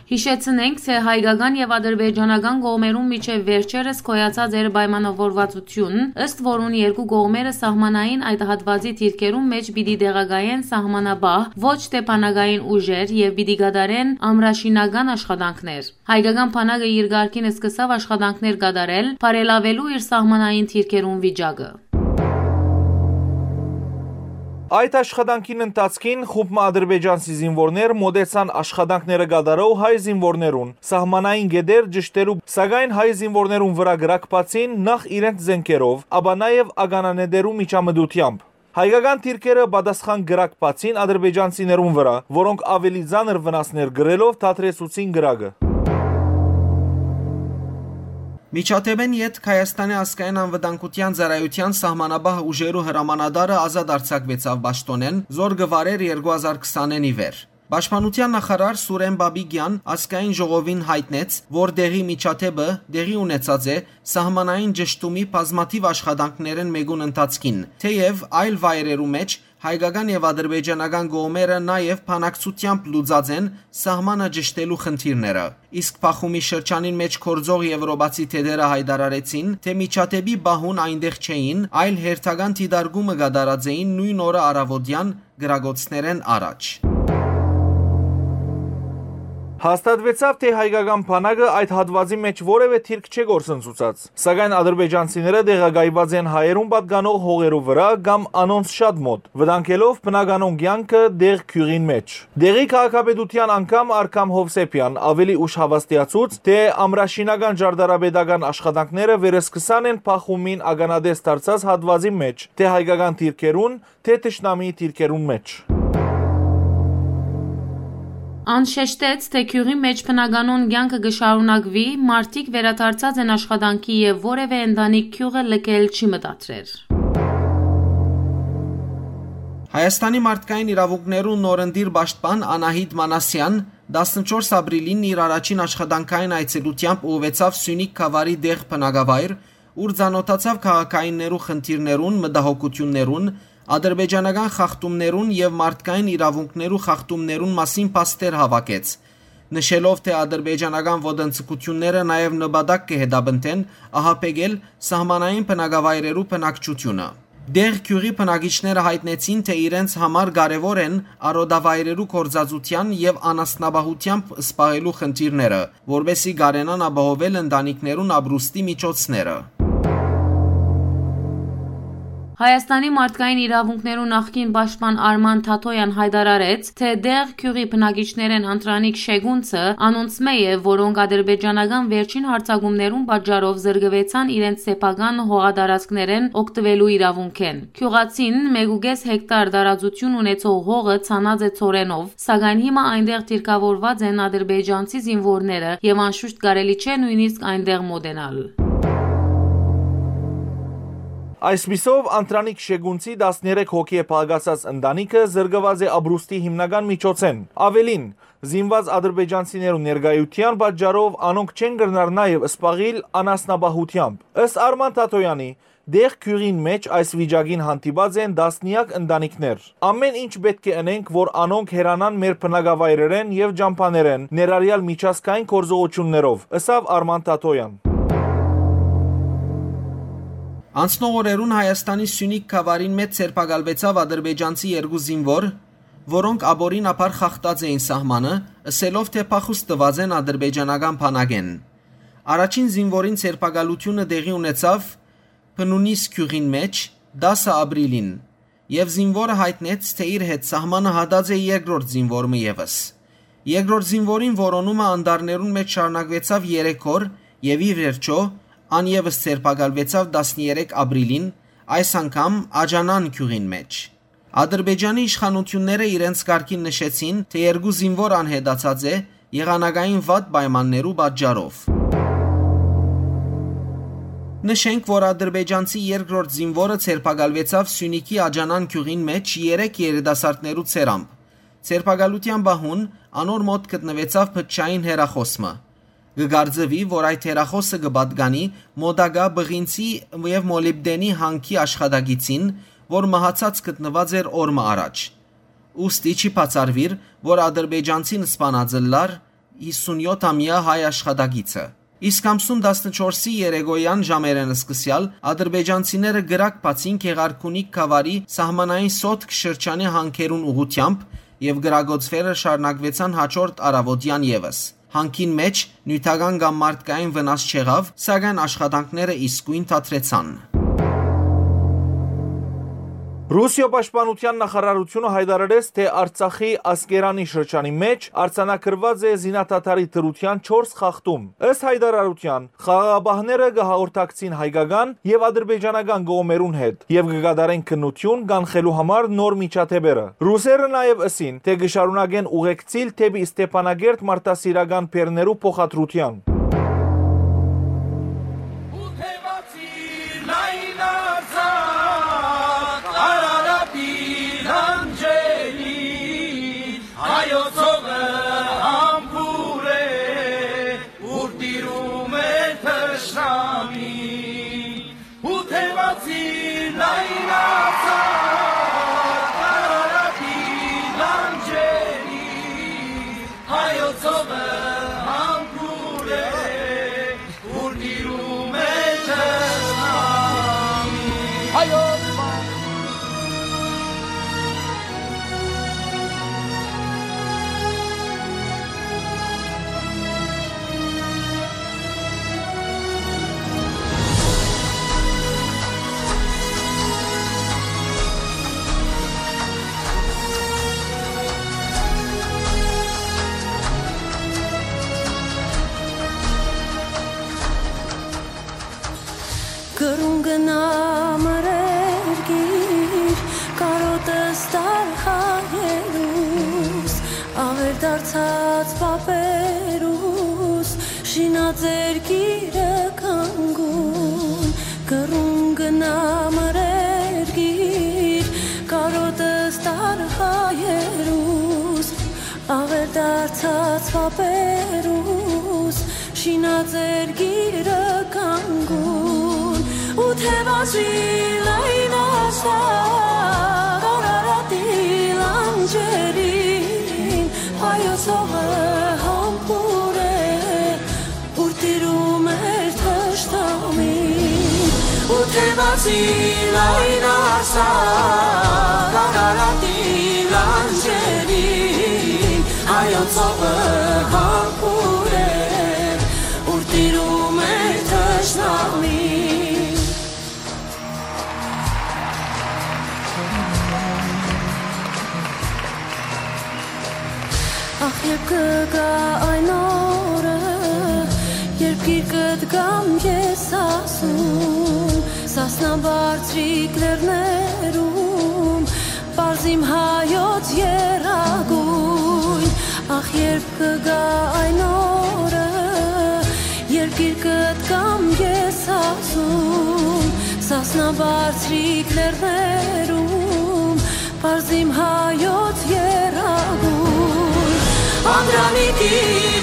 Յիշեցնենք, թէ հայկական եւ ադրբեջանական կողմերուն միջեւ վերջերս գոյացած էր պայմանաւորուածութիւն, ըստ որուն երկու կողմերը սահմանային այդ հատուածի դիրքերուն մէջ պիտի տեղակայեն սահմանապահ, ոչ թէ բանակային ուժեր, եւ պիտի կատարեն ամրաշինական աշխատանքներ։ Հայկական բանակը իր կարգին սկսաւ աշխատանքներ կատարել՝ բարելաւելու իր սահմանային դիրքերուն վիճակը։ Այդ աշխատանքին ընթացքին խումբ մը ադրբեջանցի զինուորներ մօտեցան աշխատանքները կատարող հայ զինուորներուն, սահմանային կետեր ճշտելու, սակայն հայ զինուորներուն վրայ կրակ բացին նախ իրենց զէնքերով, ապա նաեւ ականանետերու միջամտութեամբ։ Հայկական դիրքերը պատասխան կրակ բացին ադրբեջանցիներուն վրայ, որոնք աւելի ծանր վնասներ կրելով դադրեցուցին կրակը։ Միջադէպէն ետք Հայաստանի ազգային անվտանգութեան ծառայութեան սահմանապահ ուժերու հրամանատարը ազատ արձակուեցաւ պաշտօնէն, զոր կը վարէր երկու հազար քսանին ի վեր։ Պաշտպանութեան նախարար Սուրեն Բաբիկեան ազգային ժողովին յայտնեց, որ դեղի միջադէպը տեղի ունեցած է սահմանային ճշդումի բազմաթիւ աշխատանքներէն մէկուն ընթացքին, թէեւ այլ վայրերու մէջ հայկական եւ ադրբեջանական կողմերը նաեւ բանակցութեամբ լուծած են սահմանը ճշդելու խնդիրները։ Իսկ Պախումի շրջանին մէջ գործող եվրոպացի թեթերը յայտարարեցին, թէ միջադէպի պահուն այնտեղ չէին, այլ հերթական դիտարկումը կատարած էին նոյն օրը առաւօտեան կրակոցներէն առաջ։ Հաստատուեցաւ, թէ հայկական բանակը այդ հատուածի մէջ որեւէ դիրք չէ գործընծուցած, սակայն ադրբեջանցիները տեղակայուած են հայերուն պատկանող հողերու վրայ կամ անոնց շատ մօտ, վտանգելով բնականոն կեանքը դեղ գիւղին մէջ։ Դեղի քաղաքապետութեան անդամ Արքամ Հովսեփեան աւելի ուշ հաւաստիացուց, թէ ամրաշինական ճարտարապետական աշխատանքները վերսկսան են Պախումին ականատես դարձած հատուածի մէջ, թէ հայկական դիրքերուն, թէ թշնամիի դիրքերուն մէջ։ Ան շեշտեց, թէ գիւղի մէջ բնականոն կեանքը կը շարունակուի, մարդիկ վերադարձած են աշխատանքի եւ որեւէ ընտանիք գիւղը լքել չի մտադրեր։ Հայաստանի մարդկային իրաւունքներու նորընտիր պաշտպան Անահիտ Մանասեան տասնչորս ապրիլին իր առաջին աշխատանքային այցելութեամբ ուղղուեցաւ Սիւնիք գաւառի դեղ բնակավայր, ուր ծանօթացաւ քաղաքայիններու խնդիրներուն, մտահոգութիւններուն, ադրբեջանական խախտումներուն եւ մարդկային իրաւունքներու խախտումներուն մասին փաստեր հաւաքեց, նշելով, թէ ադրբեջանական ոտնձգութիւնները նաեւ նպատակ կը հետապնդեն ահաբեկել սահմանային բնակավայրերու բնակչութիւնը։ Դեղ գիւղի բնակիչները յայտնեցին, թէ իրենց համար կարեւոր են արոտավայրերու գործածութեան եւ անասնապահութեամբ զբաղելու խնդիրները, որպէսզի կարենան ապահովել ընտանիքներուն ապրուստի միջոցները։ Հայաստանի մարդկային իրաւունքներու նախկին պաշտպան Արման Թաթոյան յայտարարեց, թէ դեղ գիւղի բնակիչներէն Անդրանիկ Շեգունցը անոնցմէ է, որոնք ադրբեջանական վերջին յարձակումներուն պատճառով զրկուեցան իրենց սեփական հողատարածքներէն օգտուելու իրաւունքէն։ Գիւղացին մէկ ու կէս հեկտար տարածութիւն ունեցող հողը ցանած է ցորենով, սակայն հիմա այնտեղ դիրքաւորուած են ադրբեջանցի զինուորները եւ անշուշտ կարելի չէ նոյնիսկ այնտեղ մօտենալ։ Այսպիսով, Անդրանիկ Շեգունցի տասներեք հոգի է փաղկացած ընտանիքը զրկուած է ապրուստի հիմնական միջոցէն։ Աւելին, զինուած ադրբեջանցիներու ներկայութեան պատճառով անոնք չեն կրնար նաեւ զբաղիլ անասնապահութեամբ։ Ըստ Արման Թաթոյանի, դեղ գիւղին մէջ այս վիճակին հանդիպած են տասնեակ ընտանիքներ։ Ամեն ինչ պէտք է ընենք, որ անոնք հեռանան մեր բնակավայրերէն եւ ճամբաներէն, ներառյալ միջազգային գործողութիւններով, ըսաւ Արման Թաթոյան։ Անցնող օրերուն Հայաստանի Սիւնիք գաւառին մէջ ձերբակալուեցաւ ադրբեջանցի երկու զինուոր, որոնք ապօրինաբար խախտած էին սահմանը, ըսելով, թէ փախուստ տուած են ադրբեջանական բանակէն։ Առաջին զինուորին ձերբակալութիւնը տեղի ունեցաւ Փնունիս գիւղին մէջ, տասը ապրիլին, եւ զինուորը յայտնեց, թէ իր հետ սահմանը հատած է երկրորդ զինուոր մը եւս։ Երկրորդ զինուորին որոնումը անտառներուն մէջ շարունակուեցաւ երեք օր եւ ի վերջոյ ան եւս ձերբակալուեցաւ տասներեք ապրիլին, այս անգամ Աջանան գիւղին մէջ։ Ադրբեջանի իշխանութիւնները իրենց կարգին նշեցին, թէ երկու զինուոր անհետացած է եղանակային վատ պայմաններու պատճառով։ Նշենք, որ ադրբեջանցի երկրորդ զինուորը ձերբակալուեցաւ Սիւնիքի Աջանան գիւղին մէջ երեք երիտասարդներու ցերամբ։ Ձերբակալութեան պահուն անոր մօտ գտնուեցաւ փչային հեռախոս մը։ Կը կարծուի, որ այդ հեռախոսը կը պատկանի մօտակայ Պղինցի եւ Մոլիբտենի հանքի աշխատակիցին, որ մահացած գտնուած էր օր մը առաջ։ Ուստի չի բացառուիր, որ ադրբեջանցին սպանած ըլլար յիսունյոթ ամեայ հայ աշխատակիցը։ Իսկ ամսուն տասնչորսի երեկոյեան ժամերէն սկսեալ ադրբեջանցիները կրակ բացին Գեղարքունիք գաւառի սահմանային Սոտք շրջանի հանքերուն ուղղութեամբ եւ կրակոցները շարունակուեցան հաջորդ առաւօտեան եւս։ Հանքին մէջ նիւթական կամ մարդկային վնաս չեղաւ, սակայն աշխատանքները իսկոյն դադրեցան։ Ռուսիոյ պաշտպանութեան նախարարութիւնը յայտարարեց, թէ Արցախի Ասկերանի շրջանի մէջ արձանագրուած է զինադադարի դրութեան չորս խախտում։ Ըստ յայտարարութեան, խաղաղապահները կը հաղորդակցին հայկական եւ ադրբեջանական կողմերուն հետ եւ կը կատարեն քննութիւն կանխելու համար նոր միջադէպերը։ Ռուսերը նաեւ ըսին, թէ կը շարունակեն ուղեկցիլ դէպի Ստեփանակերտ մարդասիրական բեռներու փոխադրութեան։ Հայոց հողը համբուրե, ուր տիրում է թշնամի, ու թևացի լայնացած Արարատի լանջերի, հայոց հողը համբուրե, ուր տիրում է թշնամի։ Հայոց Կրուն գնա մեր երկիր, կարօտս տար հայերուս, աւեր դարձած պապերուս, շինած երկիրը կանգուն։ Կրուն գնա մեր երկիր, կարօտս տար հայերուս, աւեր դարձած պապերուս, շինած երկիրը կանգուն, ու թևազի լայնացա Արարատի լանջերին, հայոց հողը համբուրե, ուր տիրում էր թշնամի, ու թևազի լայնացա Արարատի լանջերին, հայոց հողը համբուրե, ուր տիրում է թշնամի։ Ախ, երբ կը գայ այն օրը, երբ գիրկդ կամ ես ասում, Սասնաբարձրիկ լեռներում պարզ իմ հայոց եռագույն, ախ, երբ կը գայ այն օրը, երբ գիրկդ կամ ես ասում, Սասնաբարձրիկ լեռներում պարզ իմ հայոց եռագույն, Անդրանիկի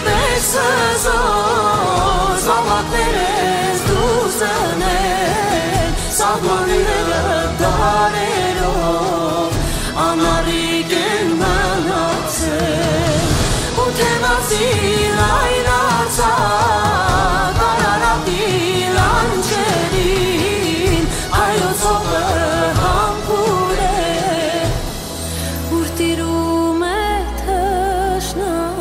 պես հզոր զաւակներ ես դու զնել, սահմանները դարերով անառիկ են մնացել, ու թևազի լայնացա Արարատի լանջերին, հայոց հողը համբուրե, ուր տիրում է թշնամի։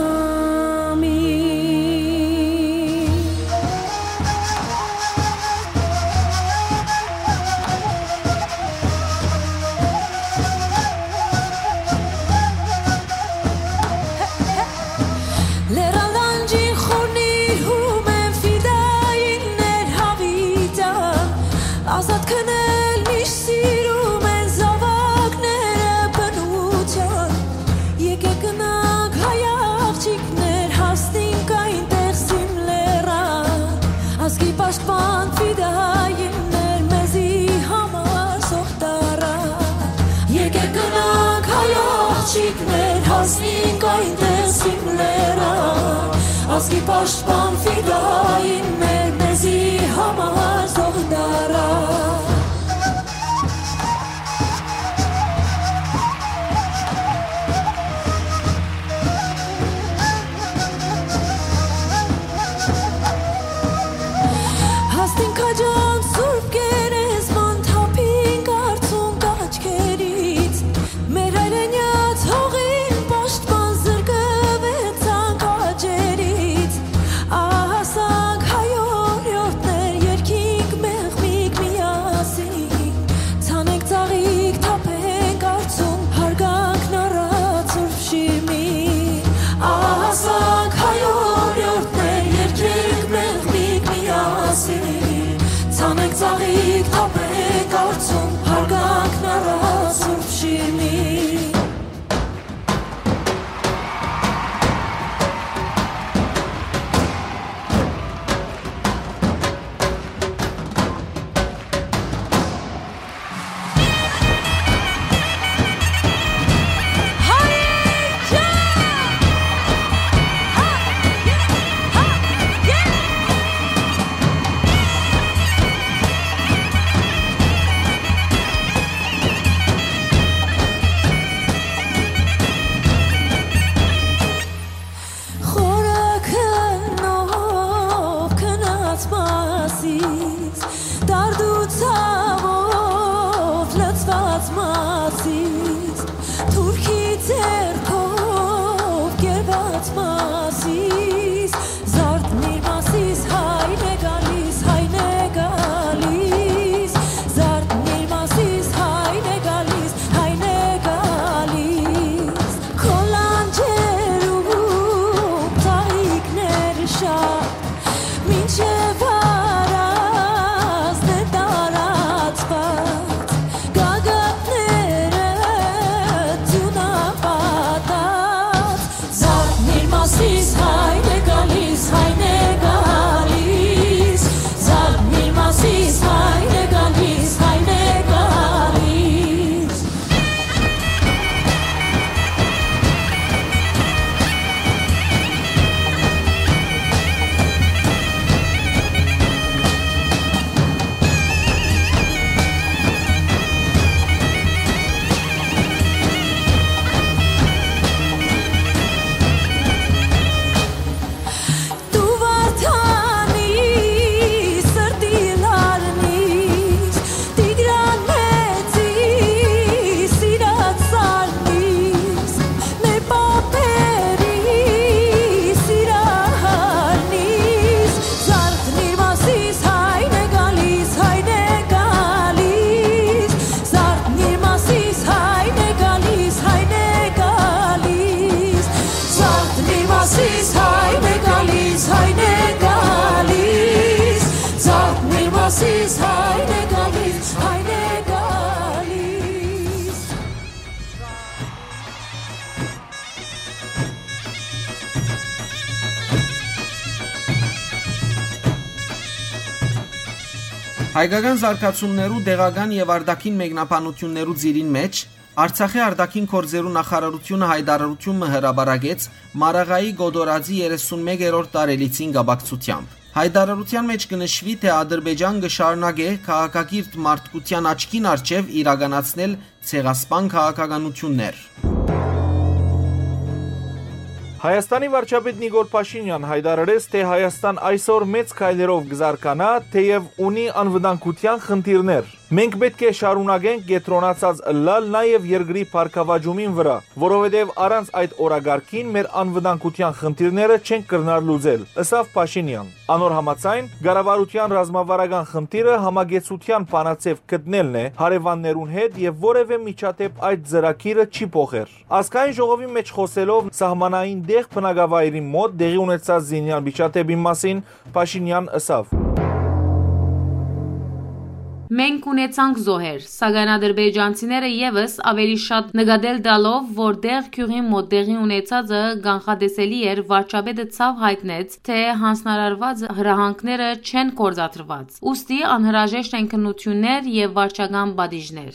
Եկեք գնանք, հայ աղջիկներ, հասնենք այնտեղ իմ լեռան, ազգի պաշտպան ֆիդային մեր, մեզի համար թող դարան։ Հասնենք քաջան Սուրբ Գերեզման, թափենք արցունք աչքերից, մեր հայրենյաց հողին պաշտպան, զրկվեցանք աճերից, ահասանք հայ օրիորդներ, երգենք մեղմիկ միասին, ցանենք ծաղիկ, թափենք արցունք, հարգանքն առած Սուրբ Շիրմի։ Ահասանք հայ օրիորդներ, երգենք մեղմիկ միասին, ցանենք ծաղիկ, թափենք արցունք, հարգանքն առած Սուրբ Շիրմի։ Խորը քննով քնած Մասիս, դարդու ցաւով լցված Մասիս, թուրքի ձեռքով կերված Մասիս, զարթնիր Մասիս, հայն է գալիս, հայն է գալիս, զարթնիր Մասիս, հայն է գալիս, հայն է գալիս, քո լանջերում ծաղիկներ շատ, մինչև առազն է տարածված, գագաթները ձիուն պատած, զարթնիր Մասիս, հայն է գալիս, հայն է գալիս, զարթնիր Մասիս, հայն է գալիս, հայն է գալիս։ Դու Վարդանի սրտի լարնիս, Տիգրան մեծի սիրած սարնիս, մեր պապերի սիրահարնիս, զարթնիր Մասիս, հայն է գալիս, հայն է գալիս, զարթնիր Մասիս, հայն է գալիս, հայն է գալիս, զարթնիր Մասիս, հայն է գալիս, հայն է գալիս, զարթնիր Մասիս, հայն է գալիս, հայն է գալիս։ Հայկական զարգացումներու, տեղական եւ արտաքին մեկնաբանություններու ծիրին մէջ Արցախի արտաքին գործերու նախարարութիւնը յայտարարութիւն մը հրապարակեց Մարաղայի Կոտորածի երեսունմեկերորդ տարելիցին կապակցութեամբ։ Յայտարարութեան մէջ կը նշուի, թէ Ադրբեջան կը շարունակէ քաղաքակիրթ մարդկութեան աչքին առջեւ իրականացնել ցեղասպան քաղաքականութիւններ։ Հայաստանի վարչապետ Նիկոլ Փաշինեան յայտարարեց, թէ Հայաստան այսօր մեծ քայլերով կը զարգանայ, թէեւ ունի անվտանգութեան խնդիրներ։ Մենք պէտք է շարունակենք կեդրոնացած ըլլալ նաեւ երկրի բարգաւաճումին վրայ, որովհետեւ առանց այդ օրակարգին մեր անվտանգութեան խնդիրները չենք կրնար լուծել, ըսաւ Փաշինեան։ Անոր համաձայն, կառավարութեան ռազմավարական խնդիրը համակեցութեան բանաձեւ գտնելն է հարեւաններուն հետ եւ որեւէ միջադէպ այդ ծրագիրը չի փոխեր։ Ազգային ժողովի մէջ խօսելով սահմանային տեղ բնակավայրին մօտ տեղի ունեցած զինեալ միջադէպին մասին Փաշինեան ըսաւ։ Մենք ունեցանք զոհեր, սակայն ադրբեջանցիները եւս ավելի շատ նկատել տալով, որ Դեղ գիւղին մօտ տեղի ունեցածը կանխատեսելի էր, վարչապետը ցաւ յայտնեց, թէ յանձնարարուած հրահանգները չեն գործադրուած, ուստի անհրաժեշտ են քննութիւններ եւ վարչական պատիժներ։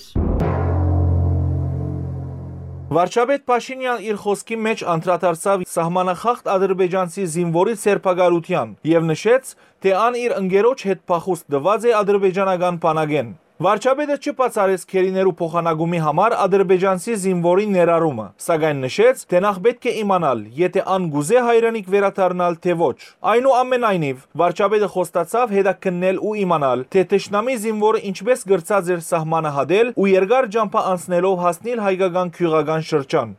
Վարչապետ Փաշինեան իր խօսքի մէջ անդրադարձաւ սահմանախախտ ադրբեջանցի զինուորի ձերբակալութեան եւ նշեց, թէ ան իր ընկերոջ հետ փախուստ տուած է ադրբեջանական բանակէն։ Վարչապետը չբացառեց գերիներու փոխանակումի համար ադրբեջանցի զինուորի ներառումը, սակայն նշեց, թէ նախ պէտք է իմանալ, եթէ ան կուզէ հայրենիք վերադառնալ, թէ ոչ։ Այնուամենայնիւ, վարչապետը խոստացաւ հետաքննել ու իմանալ, թէ թշնամի զինուորը ինչպէս կրցած էր սահմանը հատել ու երկար ճամբայ անցնելով հասնիլ հայկական գիւղական շրջան։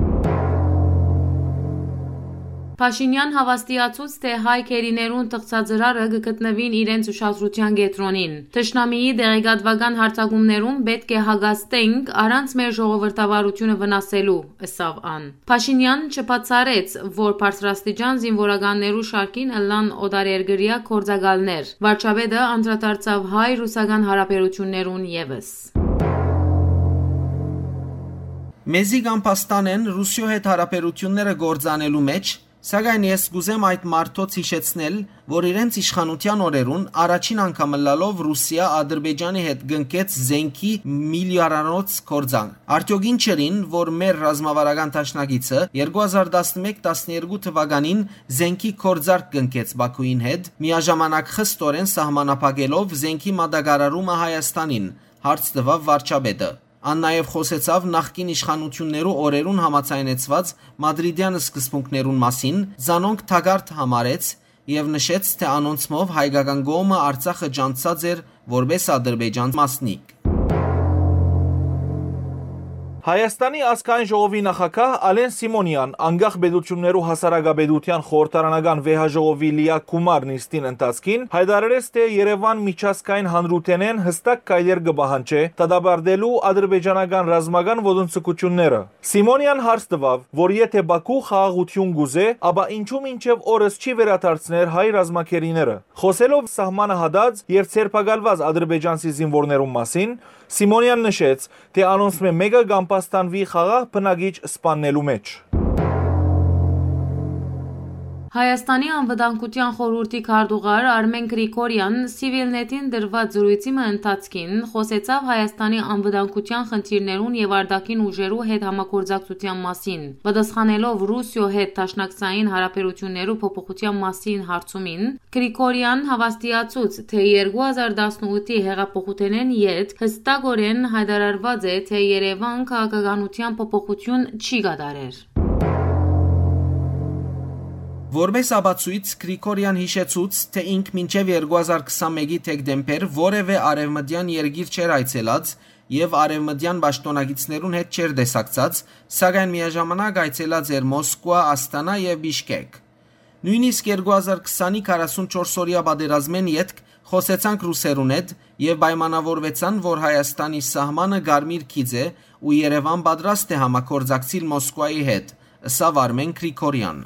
Փաշինեան հաւաստիացուց, թէ հայ գերիներուն թղթածրարը կը գտնուին իրենց ուշադրութեան կեդրոնին։ Թշնամիի տեղեկատուական յարձակումներուն պէտք է հակազդենք առանց մեր ժողովրդավարութիւնը վնասելու, ըսաւ ան։ Փաշինեան չբացառեց, որ բարձրաստիճան զինուորականներու շարքին ըլլան օտարերկրեայ գործակալներ։ Վարչապետը անդրադարձաւ հայ-ռուսական յարաբերութիւններուն եւս։ Մեզի կամբաստան են Ռուսիոյ հետ յարաբերութիւնները գործանելու մէջ, սակայն ես կ'ուզեմ այդ մարդոց յիշեցնել, որ իրենց իշխանութեան օրերուն առաջին անգամ ըլլալով Ռուսիա Ադրբեջանի հետ կնքեց զենքի միլիարդանոց գործարք։ Արդեօք ի՞նչ էր, որ մեր ռազմավարական դաշնակիցը երկու հազար տասնմեկ տասներկու թուականին զենքի գործարք կնքեց Բաքուին հետ, միաժամանակ խստորեն սահմանափակելով զենքի մատակարարումը Հայաստանին, հարց տուաւ վարչապետը։ Ան նաեւ խօսեցաւ նախկին իշխանութիւններու օրերուն համաձայնեցուած մադրիդեան սկզբունքներուն մասին, զանոնք թակարդ համարեց եւ նշեց, թէ անոնցմով հայկական կողմը Արցախը ճանչցած էր որպէս Ադրբեջան մասնիկ։ Հայաստանի ազգային ժողովի նախագահ Ալեն Սիմոնեան անկախ պետութիւններու հասարակապետութեան խորհրդարանական վեհաժողովի լիակումար նիստին ընթացքին յայտարարեց, թէ Երեւան միջազգային հանրութենէն յստակ քայլեր կը պահանջէ դատապարտելու ադրբեջանական ռազմական ոտնձգութիւնները։ Սիմոնեան հարց տուաւ, որ եթէ Բաքու խաղաղութիւն կ'ուզէ, ապա ինչո՞ւ մինչեւ օրս չի վերադարձներ հայ ռազմագերիները։ Խօսելով սահմանը հատած եւ ձերբակալուած ադրբեջանցի զինուորներուն մասին, Սիմոնեան նշեց, թէ անոնցմէ մէկը կամբաստանուի խաղաղ բնակիչ սպաննելու մէջ։ Հայաստանի անվտանգութեան խորհուրդի քարտուղար Արմեն Գրիգորեան Civil Net-ին տրուած զրոյցի մը ընթացքին խօսեցաւ Հայաստանի անվտանգութեան խնդիրներուն եւ արտաքին ուժերու հետ համագործակցութեան մասին։ Պատասխանելով Ռուսիոյ հետ դաշնակցային յարաբերութիւններու փոփոխութեան մասին հարցումին, Գրիգորեան հաւաստիացուց, թէ երկու հազար տասնութի յեղափոխութենէն յետ յստակօրէն յայտարարուած է, թէ Երեւան քաղաքականութեան փոփոխութիւն չի կատարեր։ Որպէս ապացոյց, Գրիգորեան յիշեցուց, թէ ինք մինչեւ երկու հազար քսանմէկի դեկտեմբեր որեւէ արեւմտեան երկիր չէր այցելած եւ արեւմտեան պաշտօնակիցներուն հետ չէր տեսակցած, սակայն միաժամանակ այցելած էր Մոսկուա, Ասթանա եւ Բիշկեկ։ Նոյնիսկ երկու հազար քսանի քառասունչորս օրեայ պատերազմէն ետք խօսեցանք ռուսերուն հետ եւ պայմանաւորուեցան, որ Հայաստանի սահմանը կարմիր գիծ է ու Երեւան պատրաստ է համագործակցիլ Մոսկուայի հետ, ըսաւ Արմեն Գրիգորեան։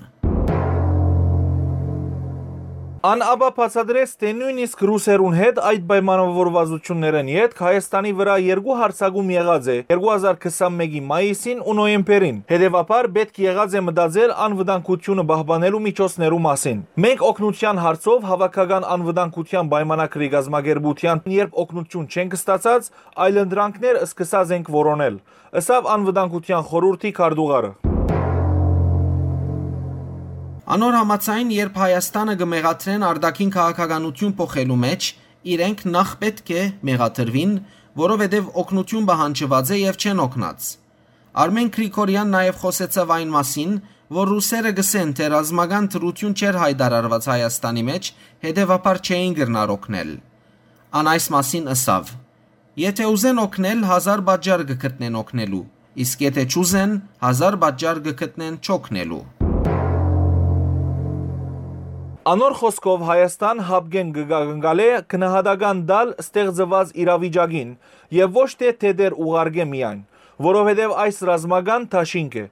Ան ապա բացատրեց, թէ նոյնիսկ ռուսերուն հետ այդ պայմանավորվածություններէն ետք Հայաստանի վրայ երկու յարձակում եղած է երկու հազար քսանմէկի մայիսին ու նոյեմբերին։ Հետեւաբար պէտք եղած է մտածել անվտանգությունը պահպանելու միջոցներու մասին։ Մենք օգնութեան հարցով Հաւաքական անվտանգութեան պայմանագրի կազմակերպութեան երբ օգնութիւն չենք ստացած, այլընտրանքներ սկսած ենք որոնել, ըսաւ անվտանգութեան խորհուրդի քարտուղարը։ Անոր համաձայն, երբ Հայաստանը կը մեղադրեն արտաքին քաղաքականութիւն փոխելու մէջ, իրենք նախ պէտք է մեղադրուին, որովհետեւ օգնութիւն պահանջուած է եւ չեն օգնած։ Արմեն Գրիգորեան նաեւ խօսեցաւ այն մասին, որ ռուսերը կ'ըսեն, թէ ռազմական դրութիւն չէր յայտարարուած Հայաստանի մէջ, հետեւաբար չէին կրնար օգնել։ Ան այս մասին ըսաւ. «Եթէ ուզեն օգնել, հազար պատճառ կը գտնեն օգնելու, իսկ եթէ չուզեն, հազար պատճառ կը գտնեն չօգնելու»։ Անոր խօսքով, Հայաստան հապկեն կը կանգալէ գնահատական տալ ստեղծուած իրավիճակին եւ ոչ թէ թեթեր ուղարկէ միայն, որովհետեւ այս ռազմական դաշինք է։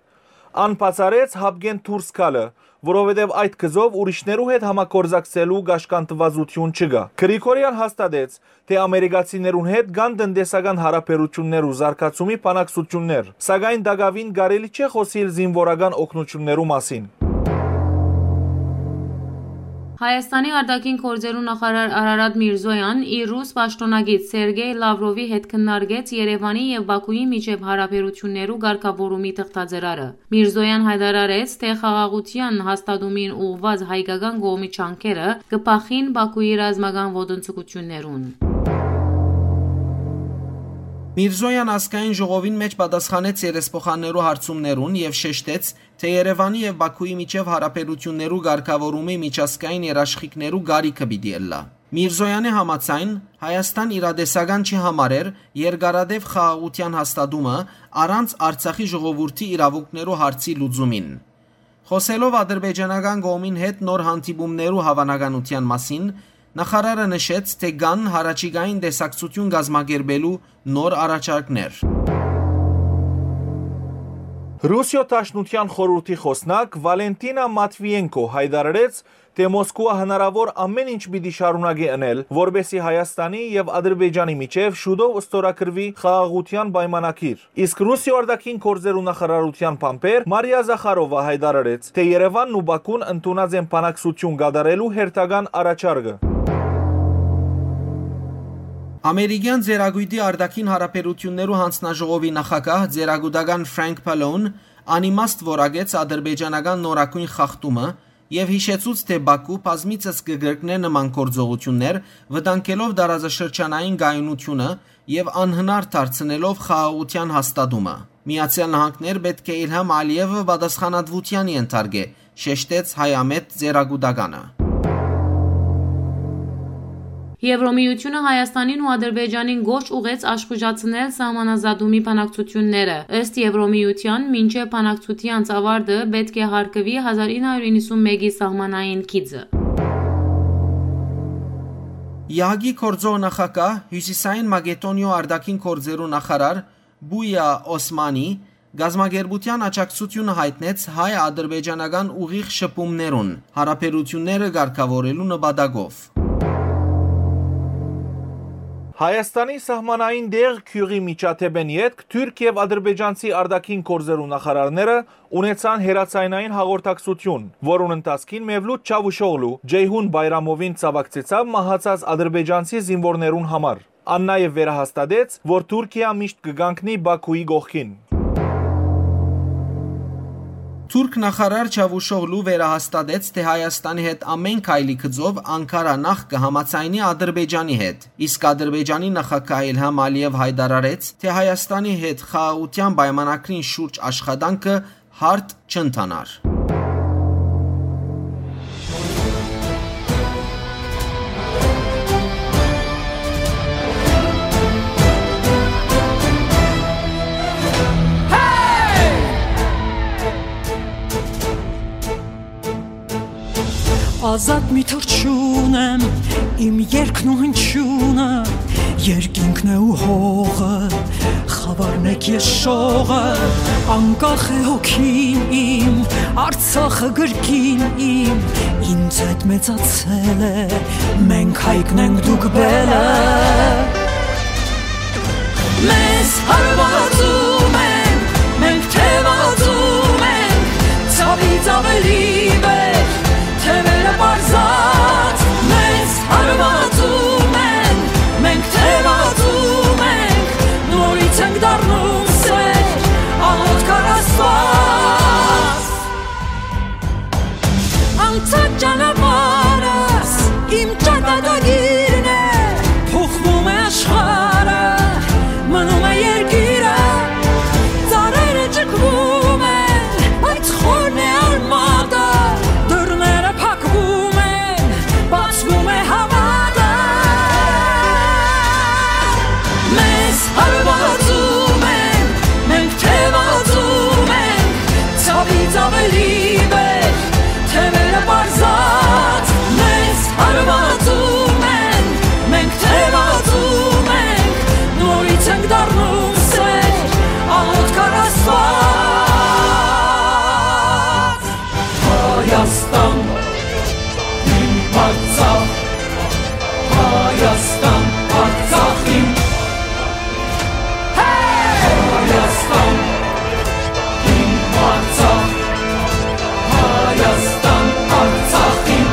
Ան բացառեց հապկեն դուրս գալը, որովհետեւ այդ գծով ուրիշներու հետ համագործակցելու կաշկանդուածութիւն չկայ։ Գրիգորեան հաստատեց, թէ ամերիկացիներուն հետ կան տնտեսական յարաբերութիւններ ու զարգացումի բանակցութիւններ, սակայն տակաւին կարելի չէ խօսիլ զինուորական օգնութիւններու մասին։ Հայաստանի արտաքին գործերու նախարար Արարատ Միրզոյան իր ռուս պաշտօնակից Սերգեյ Լավրովի հետ քննարկեց Երեւանի եւ Բաքուի միջեւ յարաբերութիւններու կարգաւորումի թղթաձեռարը։ Միրզոյան յայտարարեց, թէ խաղաղութեան հաստատումին ուղղուած հայկական կողմի ջանքերը կը բախին Բաքուի ռազմական ոտնձգութիւններուն։ Միրզոյան ազգային ժողովին մէջ պատասխանեց երեսփոխաններու հարցումներուն եւ շեշտեց, թէ Երեւանի եւ Բաքուի միջեւ յարաբերութիւններու կարգաւորումի միջազգային երաշխիքներու կարիքը պիտի ըլլայ։ Միրզոյանի համաձայն, Հայաստան իրատեսական չի համարեր երկարատեւ խաղաղութեան հաստատումը առանց Արցախի ժողովուրդի իրաւունքներու հարցի լուծումին։ Խօսելով ադրբեջանական կողմին հետ նոր հանդիպումներու հաւանականութեան մասին, նախարարը նշեց, թէ կան յառաջիկային տեսակցութիւն կազմակերպելու նոր առաջարկներ։ Ռուսիոյ Դաշնութեան խորհուրդի խօսնակ Վալենտինա Մատվիենկո յայտարարեց, թէ Մոսկուա հնարաւոր ամէն ինչ պիտի շարունակէ ընել, որպէսզի Հայաստանի եւ Ադրբեջանի միջեւ շուտով ստորագրուի խաղաղութեան պայմանագիր։ Իսկ Ռուսիոյ արտաքին գործերու նախարարութեան բանբեր Մարիա Զախարովա յայտարարեց, թէ Երեւանն ու Բաքուն ընդունած են բանակցութիւն կատարելու հերթական առաջարկը։ Ամերիկեան Ծերագոյտի արտաքին յարաբերութիւններու յանձնաժողովի նախագահ, ծերագուտական Ֆրանկ Պալոուն անիմաստ որակեց ադրբեջանական նորագոյն խախտումը, եւ յիշեցուց, թէ Բաքու բազմիցս կը կրկնէ նման գործողութիւններ, վտանգելով տարածաշրջանային կայունութիւնը եւ անհնար դարձնելով խաղաղութեան հաստատումը։ Միացեալ Նահանգներ պէտք է Իլհամ Ալիեւը պատասխանատուութեան ենթարկէ, շեշտեց հայամետ ծերագուտականը։ Եվրոմիութիւնը Հայաստանին ու Ադրբեջանին կոչ ուղղեց աշխուժացնել սահմանազատումի բանակցութիւնները։ Ըստ Եվրոմիութեան, մինչեւ բանակցութեանց ավարտը պէտք է հարգուի հազար ինը հարիւր իննսունմէկի սահմանային գիծը։ Եհակի գործող նախագահ, Հիւսիսային Մակեդոնիոյ արտաքին գործերու նախարար Պույա Օսմանի կազմակերպութեան աջակցութիւնը յայտնեց հայ-ադրբեջանական ուղիղ շփումներուն, յարաբերութիւնները կարգաւորելու նպատակով։ Հայաստանի սահմանային տեղ գիւղի միջադէպէն ետք թուրք եւ ադրբեջանցի արտաքին գործերու նախարարները ունեցան հեռաձայնային հաղորդակցութիւն, որուն ընթացքին Մևլութ Չավուշօղլու Ջեյհուն Բայրամովին ցաւակցեցաւ մահացած ադրբեջանցի զինուորներուն համար։ Ան նաեւ վերահաստատեց, որ Թուրքիա միշտ կը կանգնի Բաքուի կողքին։ Թուրք նախարար Չավուշօղլու վերահաստատեց, թէ Հայաստանի հետ ամէն քայլի գծով Անկարա նախ կը համաձայնի Ադրբեջանի հետ, իսկ Ադրբեջանի նախագահ Իլհամ Ալիեւ յայտարարեց, թէ Հայաստանի հետ խաղաղութեան պայմանագրին շուրջ աշխատանքը հարթ չընթանար։ Ազատ մի թռչուն եմ, իմ երգն ու հնչյունը, երկինքն է ու հողը, խավարն է քեշ շողը, անկախ է հոգին իմ, Արցախը կրկին իմ, ինձ հետ մեծացել է, մենք հայկն ենք, դուք բելը։ Մեզ հարվածում են, մենք թևածում ենք, ցավից ավելի վեր, թևերը պարզած, մեզ հարվածում են, մենք թևածում ենք, նորից ենք դառնում սեր, աղոթք առ Աստված։ Անցած ճանապարհս իմ ճակատագիրն է, փոխվում է աշխարհը, մնում է երկիրը, ծառերը ճկվում են, բայց խորն է արմատը, դռները փակվում են, բացվում է հավատը։ Մեզ հարվածում են, մենք թևածում ենք, ցավից ավելի վեր, թևերը պարզած, մեզ հարվածում են, մենք թևածում ենք, նորից ենք դառնում սեր, աղոթք առ Աստված։ Հայաստան, իմ Արցախ, Հայաստան, Արցախ իմ։ Հայաստան, իմ Արցախ, Հայաստան, Արցախ իմ։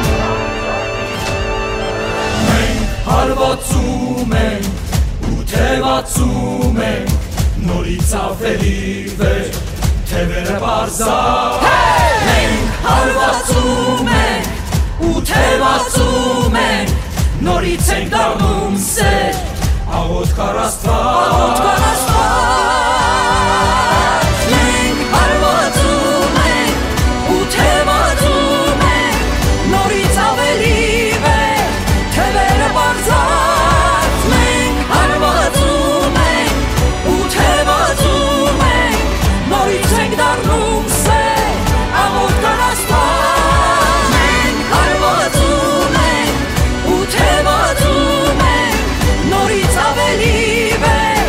Թեւերը պարզած ենք, հարվածում ենք ու թեւածում ենք, նորից ենք դառնում սեր, աղոթք առ Աստուած։ Աղոթք առ Աստուած, մենք հարվածում ենք ու թեւածում ենք, նորից ավելի վեր, թեւերը պարզած, մենք հարվածում ենք ու թեւածում ենք, նորից ենք դառնում սեր, աղոթք առ Աստուած, մենք հարվածում ենք ու թեւածում ենք, նորից ավելի վեր,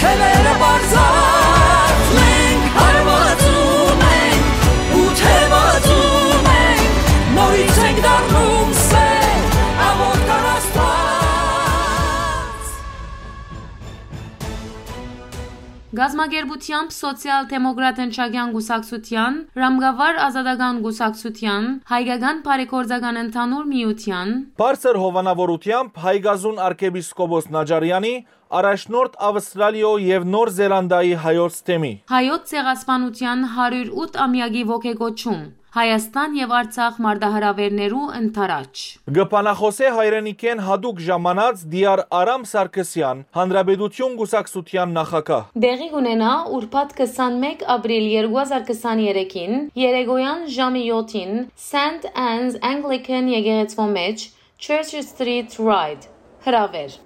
թեւերը պարզած, մենք հարվածում ենք ու թեւածում ենք, նորից ենք դառնում սեր, աղոթք առ Աստուած։ Կազմակերպութեամբ Սոցիալ-դեմոկրատ ընչակեան կուսակցութեան, Ռամկավար ազատական կուսակցութեան, Հայկական բարեգործական ընդհանուր միութեան, Բարձր հովանաւորութեամբ Հայկազուն արքեպիսկոպոս Նաճարեանի, առաջնորդ Ավստրալիոյ եւ Նոր Զելանդիայի հայոց թեմի, Հայոց ցեղասպանութեան հարիւր ութ ամեակի ոգեկոչում, Հայաստան եւ Արցախ մարտահրաւէրներու ընդառաջ։ Կը բանախօսէ հայրենիքէն յատուկ ժամանած Տիար Արամ Սարգսեան, Հանրապետություն կուսակցութեան նախագահ։ Տեղի կունենայ ուրբաթ քսանմէկ ապրիլ երկու հազար քսաներեքին, երեկոյեան ժամը յոթին, Սենթ Աննս Անգլիքան եկեղեցւոյ մէջ, Church Street Ride, հրաւէր։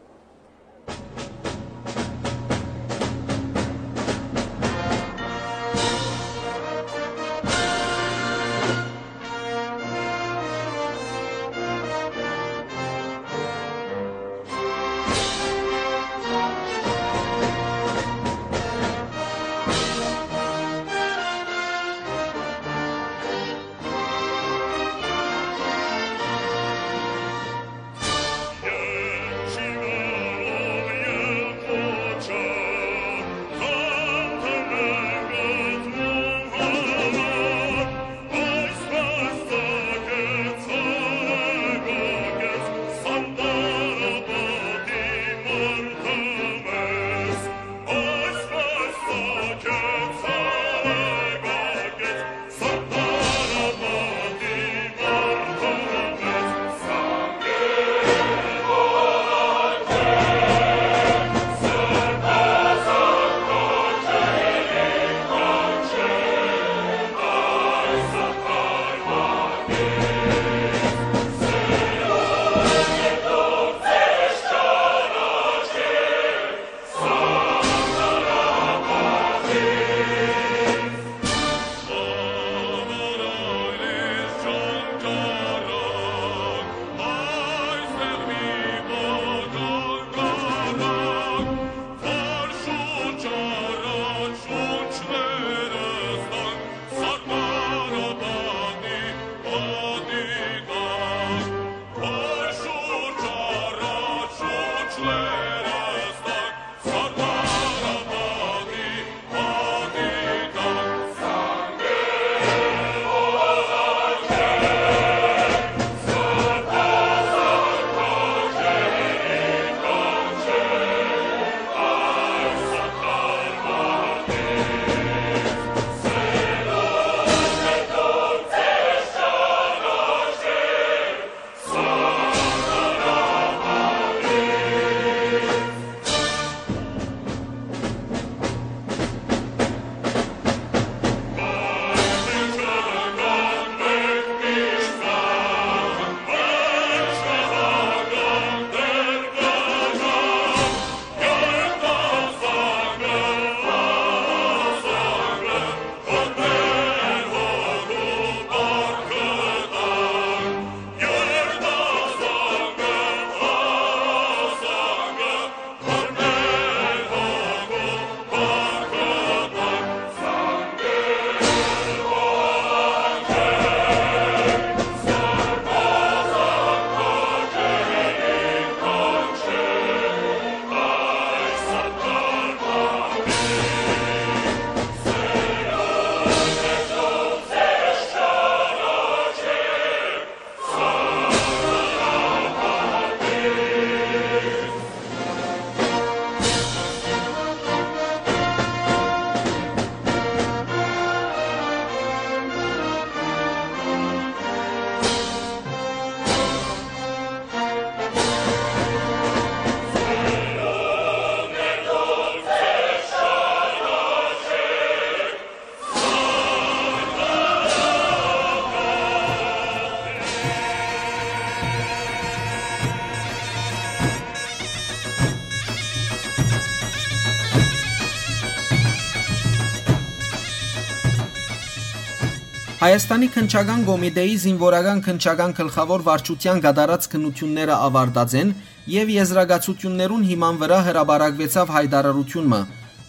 Հայաստանի քննչական կոմիտէի զինուորական քննչական գլխաւոր վարչութեան կատարած քննութիւնները աւարտած են եւ եզրակացութիւններուն հիման վրայ հրապարակուեցաւ յայտարարութիւն մը,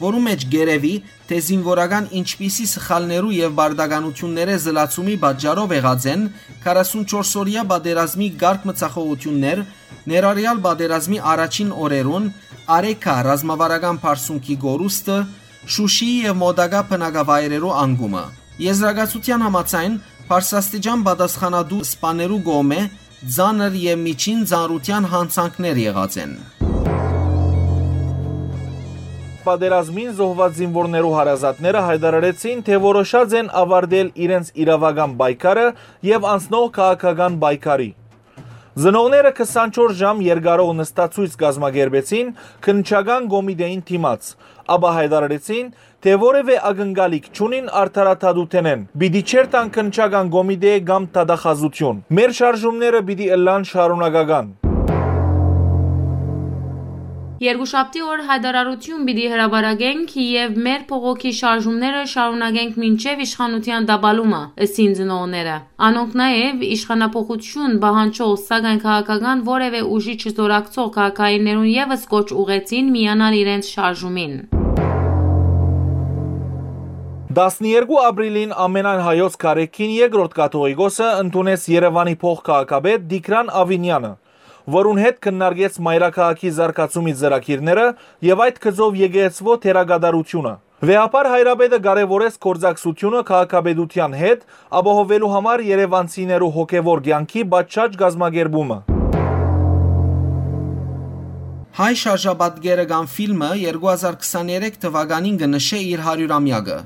որու մէջ կ'երեւի, թէ զինուորական ինչպիսի սխալներու եւ պարտականութիւններէ զլացումի պատճառով եղած են քառասունչորս օրեայ պատերազմի կարգ մցախոհութիւններ, ներառեալ պատերազմի առաջին օրերուն Արեքա ռազմավարական պարսունքի կորուստը, Շուշիի եւ մօտակայ բնակավայրերու անկումը։ Եզրակացութեան համաձայն, բարձրաստիճան պատասխանատու սպաներու կողմէ ծանր եւ միջին ծանրութեան յանցանքներ եղած են։ Պատերազմին զոհուած զինուորներու հարազատները յայտարարեցին, թէ որոշած են աւարտել իրենց իրաւական պայքարը եւ անցնող քաղաքական պայքարի։ Ծնողները քսանչորս ժամ երկարող նստացոյց կազմակերպեցին քննչական կոմիտէին դիմաց, ապա յայտարարեցին, թէ որեւէ ակնկալիք չունին արդարադատութենէն, պիտի չերթան քննչական կոմիտէ կամ դատախազութիւն։ Մեր շարժումները պիտի ըլլան շարունակական։ Երկուշաբթի օր յայտարարութիւն պիտի հրապարակենք եւ մեր փողոքի շարժումները շարունակենք մինչեւ իշխանութեան տապալումը, ըսին ծնողները։ Անոնք նաեւ իշխանափոխութիւն պահանջող, սակայն քաղաքական որեւէ ուժի չզօրակցող քաղաքայիններուն եւս կոչ ուղղեցին միանալ իրենց շարժումին։ Տասներկու ապրիլին ամենայն հայոց կարեքին երկրորդ կաթողիկոսը ընդունեց Երեւանի փոխ քաղաքապետ Տիգրան Ավինեանը, որուն հետ քննարկեց մայրաքաղաքի զարգացումի ծրագիրները եւ այդ գծով եկեղեցւոյ դերակատարութիւնը։ Վեհափառ հայրապետը կարեւորեց գործակցութիւնը քաղաքապետութեան հետ՝ ապահովելու համար երեւանցիներու հոգեւոր կեանքի պատշաճ կազմակերպումը։ Հայ շարժապատկերը կամ ֆիլմը երկու հազար քսաներեք թուականին կը նշէ իր հարիւրամեակը։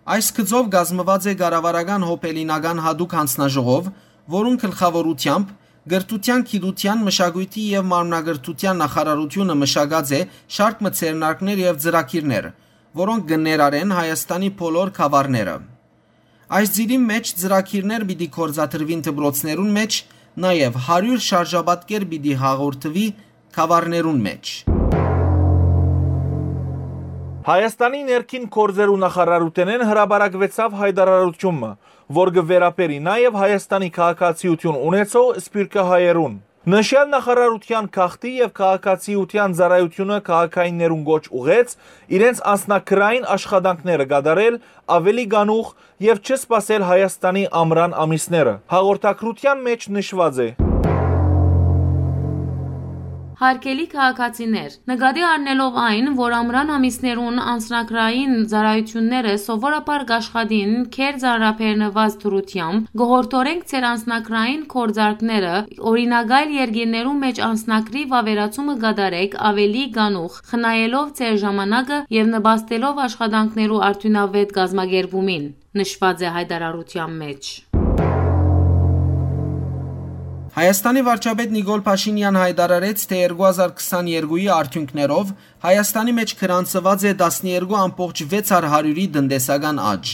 Այս գծով կազմուած է կառավարական հոբելինական յատուկ յանձնաժողով, որուն գլխաւորութեամբ կրթութեան, գիտութեան, մշակոյթի եւ մարմնակրթութեան նախարարութիւնը մշակած է շարք մը ձեռնարկներ եւ ծրագիրներ, որոնք կը ներառեն Հայաստանի բոլոր գաւառները։ Այս ծիրին մէջ ծրագիրներ պիտի գործադրուին դպրոցներուն մէջ, նաեւ հարիւր շարժապատկեր պիտի հաղորդուի գաւառներուն մէջ։ Հայաստանի ներքին գործերու նախարարութենէն հրապարակուեցաւ յայտարարութիւն մը, որ կը վերաբերի նաեւ Հայաստանի քաղաքացիութիւն ունեցող սփիւռքահայերուն։ Նշեալ նախարարութեան գաղթի եւ քաղաքացիութեան ծառայութիւնը քաղաքայիններուն կոչ ուղղեց իրենց անձնագրային աշխատանքները կատարել աւելի կանուխ եւ չսպասել Հայաստանի ամրան ամիսները։ Հաղորդագրութեան մէջ նշուած է. Հարգելի քաղաքացիներ, նկատի առնելով այն, որ ամրան ամիսներուն անձնագրային ծառայութիւնները սովորաբար կ'աշխատին քեր ծանրաբեռնուած դրութեամբ, կ'որհորդորենք ձեր անձնագրային գործարքները օրինակայլ երկիրներու մէջ անձնագրի վաւերացումը կատարեք աւելի կանուխ, խնայելով ձեր ժամանակը եւ նպաստելով աշխատանքներու արդիւնաւէտ կազմակերպումին, նշուած է յայտարարութեան մէջ։ Հայաստանի վարչապետ Նիկոլ Փաշինեան յայտարարեց, թէ երկու հազար քսաներկուի արդիւնքներով Հայաստանի մէջ գրանցուած է տասներկու ամբողջ վեց հարիւրի տնտեսական աճ։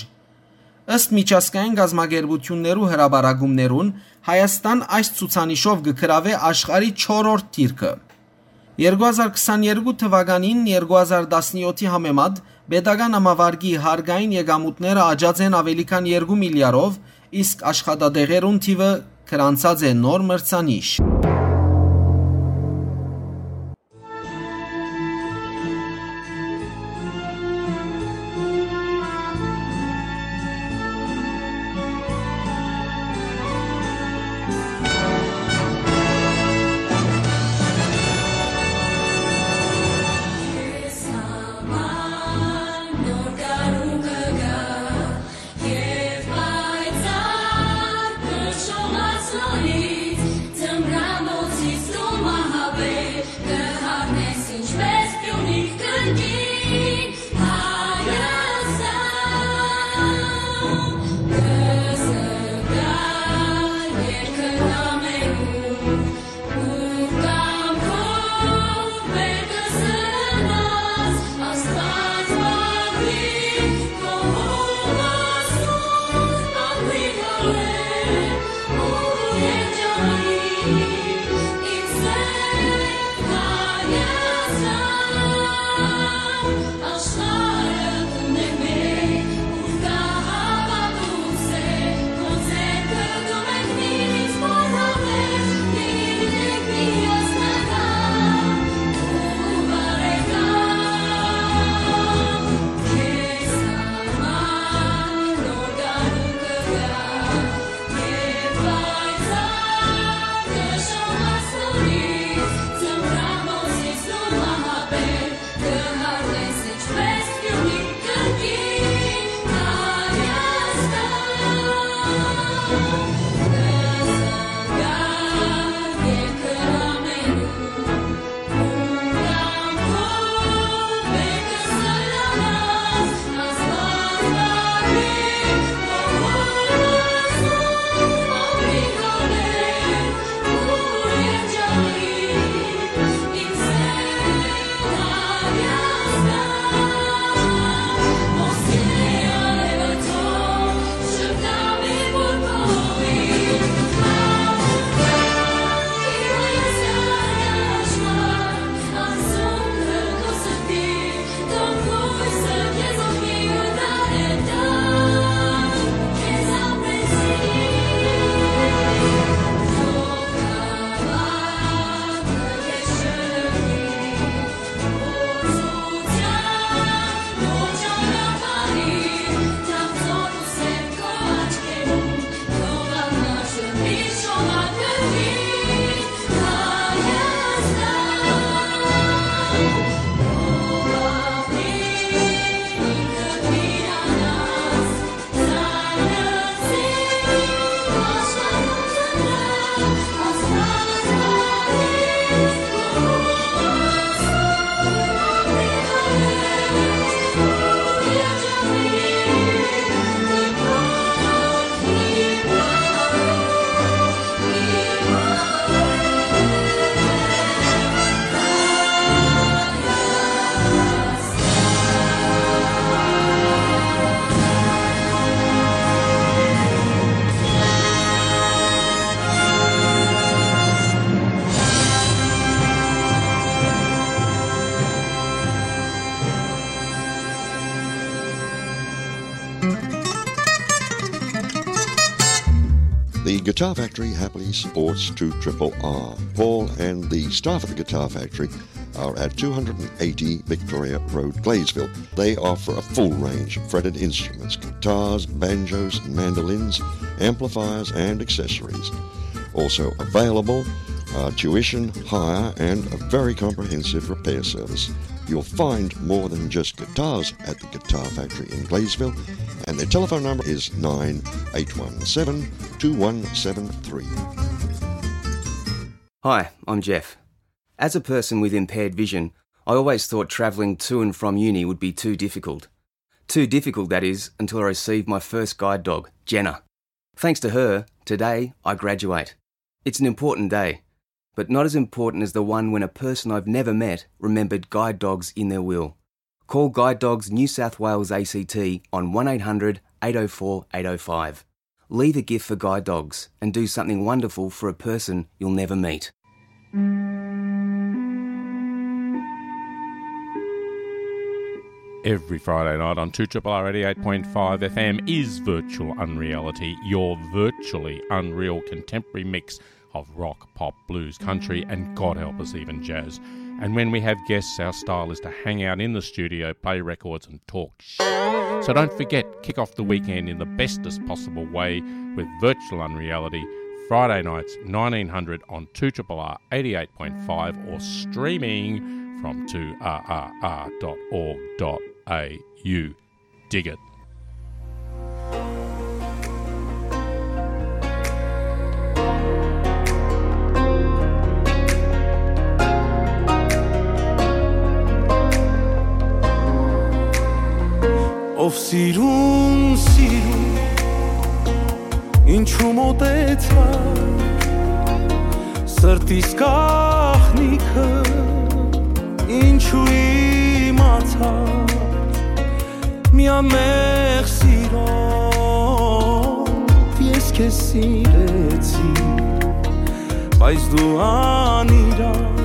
Ըստ միջազգային կազմակերպութիւններու հրապարակումներուն, Հայաստան այս ցուցանիշով կը գրաւէ աշխարհի չորրորդ դիրքը։ Երկու հազար քսաներկու թուականին երկու հազար տասնեօթի համեմատ պետական ամավարկի հարկային եկամուտները աճած են աւելի քան երկու միլիարդով, իսկ աշխատատեղերուն թիւը գրանցած է նոր մրցանիշ։ The Guitar Factory happily supports two triple R. Paul and the staff at the Guitar Factory are at two hundred and eighty Victoria Road, Gleysville. They offer a full range of fretted instruments, guitars, banjos, mandolins, amplifiers, and accessories. Also available are tuition, hire, and a very comprehensive repair service. You'll find more than just guitars at the Guitar Factory in Gleysville, and their telephone number is nine eight one seven, two one seven three. Hi, I'm Jeff. As a person with impaired vision, I always thought travelling to and from uni would be too difficult. Too difficult, that is, until I received my first guide dog, Jenna. Thanks to her, today I graduate. It's an important day, but not as important as the one when a person I've never met remembered guide dogs in their will. Call Guide Dogs New South Wales A C T on one eight hundred, eight oh four, eight oh five. Leave a gift for Guide Dogs and do something wonderful for a person you'll never meet. Every Friday night on two triple R eighty-eight point five F M is Virtual Unreality, your virtually unreal contemporary mix of rock, pop, blues, country, and God help us, even jazz. And when we have guests, our style is to hang out in the studio, play records, and talk sh-. So don't forget, kick off the weekend in the bestest possible way with Virtual Unreality, Friday nights, nineteen hundred on two triple R eighty-eight point five, or streaming from two R R R dot org dot A U. Dig it. Ով սիրուն, սիրուն, ինչու մոտեցար, սրտիս գաղտնիքը ինչու իմացար, միամեղ սիրով ես քեզ սիրեցի, բայց դու անիրավ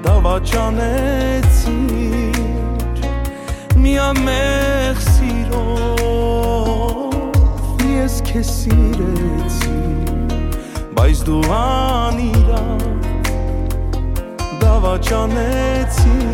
դավաճանեցիր, միամեղ սիրով ես քեզ սիրեցի, բայց դու անիրավ դավաճանեցիր։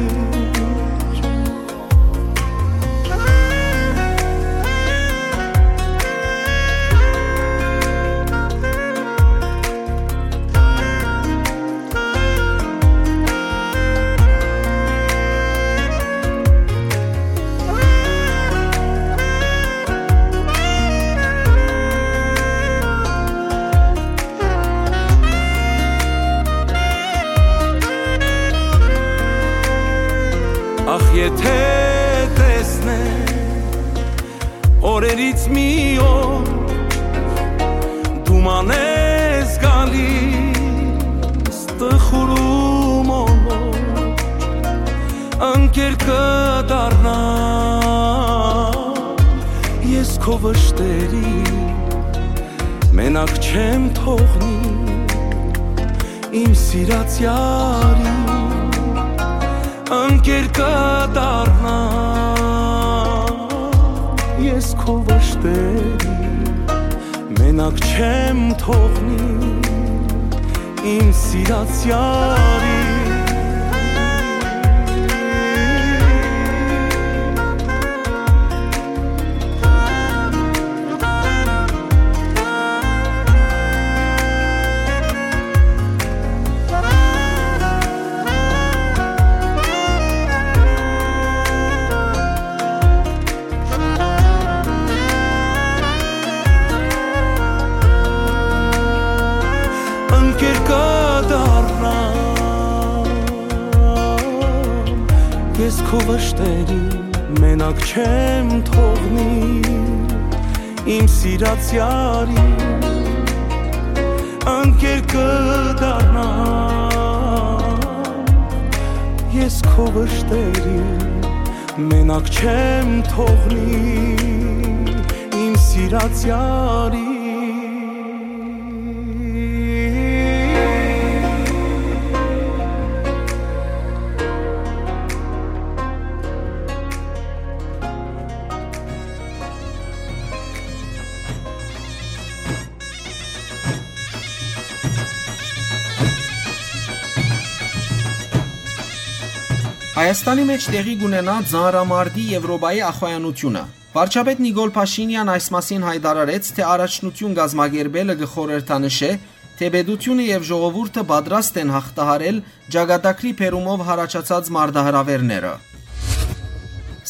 Ախ, եթե տեսնեմ օրերից մի օր, դու մանես գալիս տխուրում օր, ընկեր կդառնամ ես քո վշտերի, մենակ չեմ թողնի իմ սիրած յարին, ընկեր կդառնամ ես քո վշտերի, մենակ չեմ թողնի իմ սիրած յարին։ Ընկեր կդառնամ ես քո վշտերի, մենակ չեմ թողնի իմ սիրած յարին, ընկեր կդառնամ ես քո վշտերի, մենակ չեմ թողնի իմ սիրած յարին։ Հայաստանի մէջ տեղի կ'ունենայ ծանրամարտի Եւրոպայի ախոյանութիւնը։ Վարչապետ Նիկոլ Փաշինեան այս մասին յայտարարեց, թէ առաջնութիւն կազմակերպելը կը խորհրդանշէ, թէ պետութիւնը եւ ժողովուրդը պատրաստ են յաղթահարել ճակատագրի բերումով յառաջացած մարտահրաւէրները։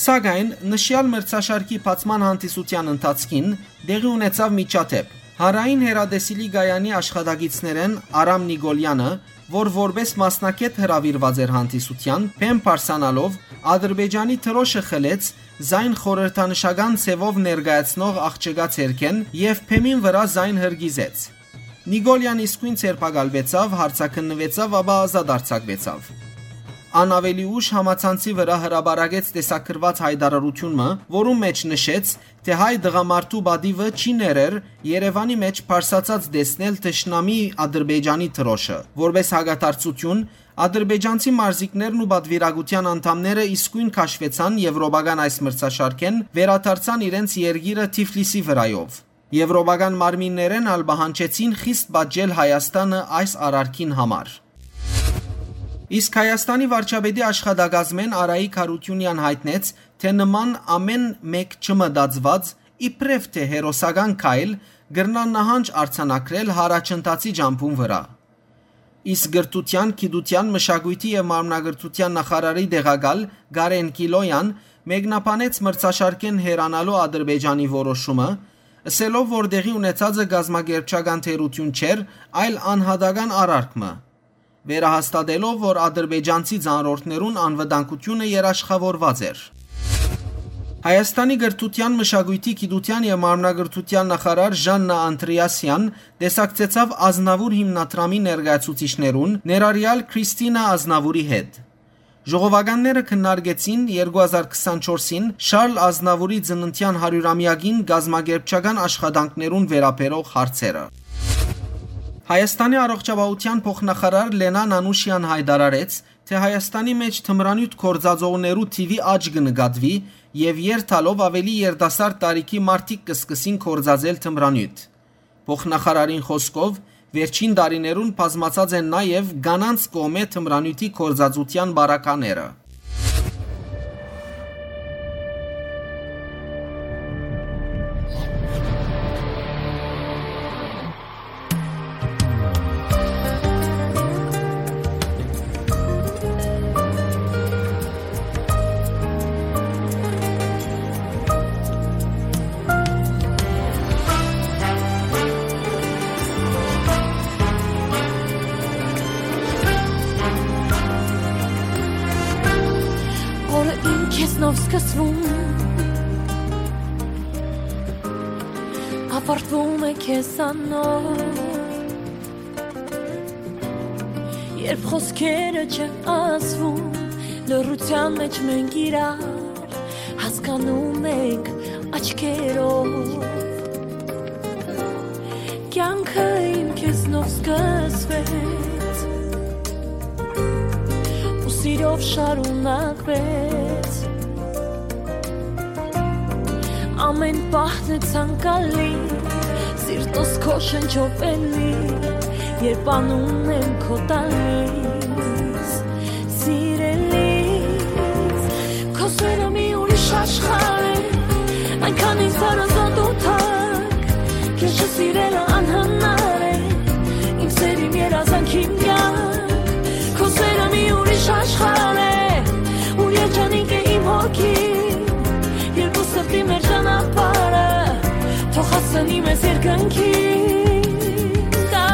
Սակայն նշեալ մրցաշարքի բացման հանդիսութեան ընթացքին տեղի ունեցաւ միջադէպ։ Հանրային հեռատեսիլի կայանի աշխատակիցներէն Արամ Նիկոլեանը, որ որպէս մասնագէտ հրաւիրուած էր հանդիսութեան, բեմ բարձրանալով, Ադրբեջանի դրօշը խլեց զայն խորհրդանշական ձեւով ներկայացնող աղջկա ձեռքէն եւ բեմին վրայ զայն հրկիզեց։ Նիկոլեան իսկոյն ձերբակալուեցաւ, հարցաքննուեցաւ, ապա ազատ արձակուեցաւ։ Ան աւելի ուշ համացանցի վրայ հրապարակեց տեսագրուած յայտարարութիւն մը, որուն մէջ նշեց, թէ հայ տղամարդու պատիւը չի ներեր Երեւանի մէջ բարձրացած տեսնել թշնամի Ադրբեջանի դրօշը։ Որպէս հակադարձութիւն, ադրբեջանցի մարզիկներն ու պատվիրակութեան անդամները իսկոյն քաշուեցան եվրոպական այս մրցաշարքէն, վերադարձան իրենց երկիրը Թիֆլիսի վրայով։ Եվրոպական մարմիններէն ալ պահանջեցին խիստ պատժել Հայաստանը այս արարքին համար։ Իսկ Հայաստանի վարչապետի աշխատակազմէն Արայիկ Յարութիւնեան յայտնեց, թէ նման ամէն մէկ չմտածուած, իբրեւ թէ հերոսական քայլ, կրնայ նահանջ արձանագրել յառաջընթացի ճամբուն վրայ։ Իսկ կրթութեան, գիտութեան, մշակոյթի եւ մարմնակրթութեան նախարարի տեղակալ Կարեն Կիլոյան մեկնաբանեց մրցաշարքէն հեռանալու Ադրբեջանի որոշումը, ըսելով, որ տեղի ունեցածը կազմակերպչական թերութիւն չէր, այլ անհատական արարք մը, վերահաստատելով, որ ադրբեջանցի ծանրորդներուն անվտանգութիւնը երաշխաւորուած էր։ Հայաստանի կրթութեան, մշակոյթի, գիտութեան եւ մարմնակրթութեան նախարար Ժաննա Անդրեասեան տեսակցեցաւ Ազնաւուր հիմնադրամի ներկայացուցիչներուն, ներառեալ Քրիստինա Ազնավուրի հետ։ Ժողովականները քննարկեցին երկու հազար քսանչորսին Շարլ Ազնավուրի ծննդեան հարիւրամեակին կազմակերպչական աշխատանքներուն վերաբերող հարցերը։ Հայաստանի առողջապահութեան փոխնախարար Լենա Նանուշեան յայտարարեց, թէ Հայաստանի մէջ թմրանիւթ գործածողներու թիւի աճ կը նկատուի եւ երթալով աւելի երիտասարդ տարիքի մարդիկ կը սկսին գործածել թմրանիւթ։ Փոխնախարարին խօսքով, վերջին տարիներուն բազմացած են նաեւ կանանց կողմէ թմրանիւթի գործածութեան պարագաները։ Օրը իմ քեզնով սկսվում, ավարտվում է քեզանով։ Երբ խոսքերը չեն ասվում, լռության մեջ մենք իրար հասկանում ենք աչքերով։ Կյանքը իմ քեզնով սկսվեց ու սիրով շարունակվեց։ Ամէն պահն է ցանկալի, սիրտս քո շնչով էլի, երբ անուն եմ քո տալիս, սիրելիս։ Քո սերը մի ուրիշ աշխարհ է, այնքան ինձ հարազատ ու թանկ, քեզ չսիրելը անհնար է, իմ սեր, իմ երազանք, իմ կյանք։ Քո սերը մի ուրիշ աշխարհ է, ուր երջանիկ է իմ հոգին, երկու սրտի մեր ճանապարհը, թող հասնի մեզ երկնքին։ Կա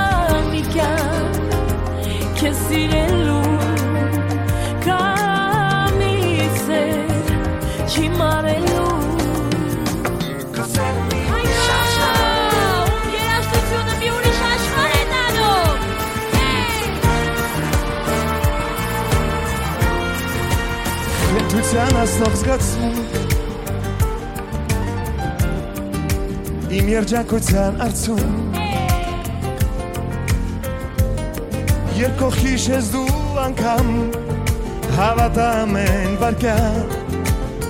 մի կյանք քեզ սիրելու, կա մի սեր չի մարելու։ Երաժշտությունը մի ուրիշ աշխարհ է տալու։ Կրթության ասնող զգացում, իմ երջանկության արծում, երբ կողքիս ես դու անգամ, հավատամ են վարկյան,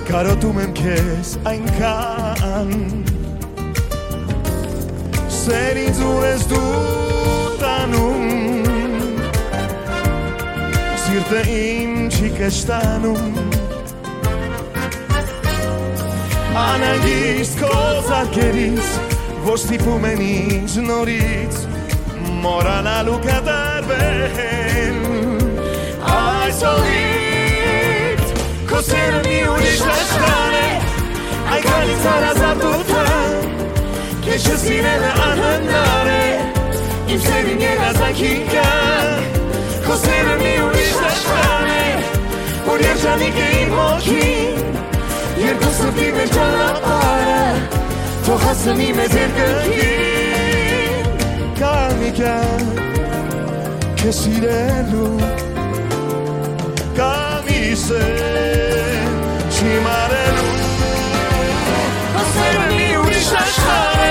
կարոտում եմ քեզ այնքան։ Սեր ինձ ուր ես դու տանում, սիրտը իմ չի կշտանում։ Անհանգիստ քո ձեռքերից, որ ստիպում են ինձ նորից մոռանալ ու կտրվել։ Այս օրից քո սերը մի ուրիշ աշխարհ է, այնքան ինձ հարազատ ու թանկ, քեզ չսիրելը անհնար է, իմ սերին երազանքին կան, քո սերը մի ուրիշ աշխարհ է, որ երջանիկ է իմ հոգին, երկու սրտի մեր ճանապարհը, թող հասնի մեզ երկնքին։ Կա մի կյանք քեզ սիրելու, կա մի սեր չիմ արելու։ Քո սերը մի ուրիշ աշխարհ է,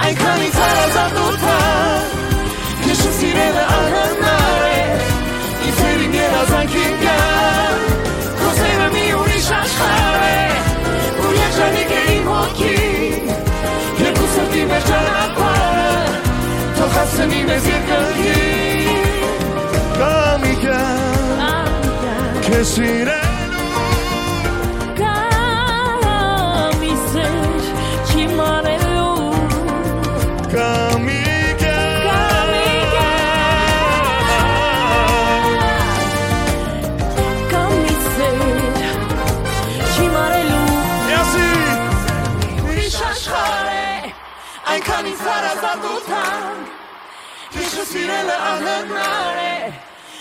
այնքան ինձ հարազատ ու թանկ, քեզ չսիրելը անհնար է, իմ սերին երազանքին կան, քո սերը մի ուրիշ աշխարհ է, որ երջանիկ է իմ հոգին, երկու սրտի մեր ճանապարհը, թող հասցնի մեզ երկնքին։ Կա մի կյանք քեզ սիրելու, կա մի սեր չիմ արելու, կա մի կյանք, կա մի սեր չիմ արելու։ Ուրիշ աշխարհ է, այնքան ինձ հարազատ ու թանկ, քեզ չսիրելը անհնար է,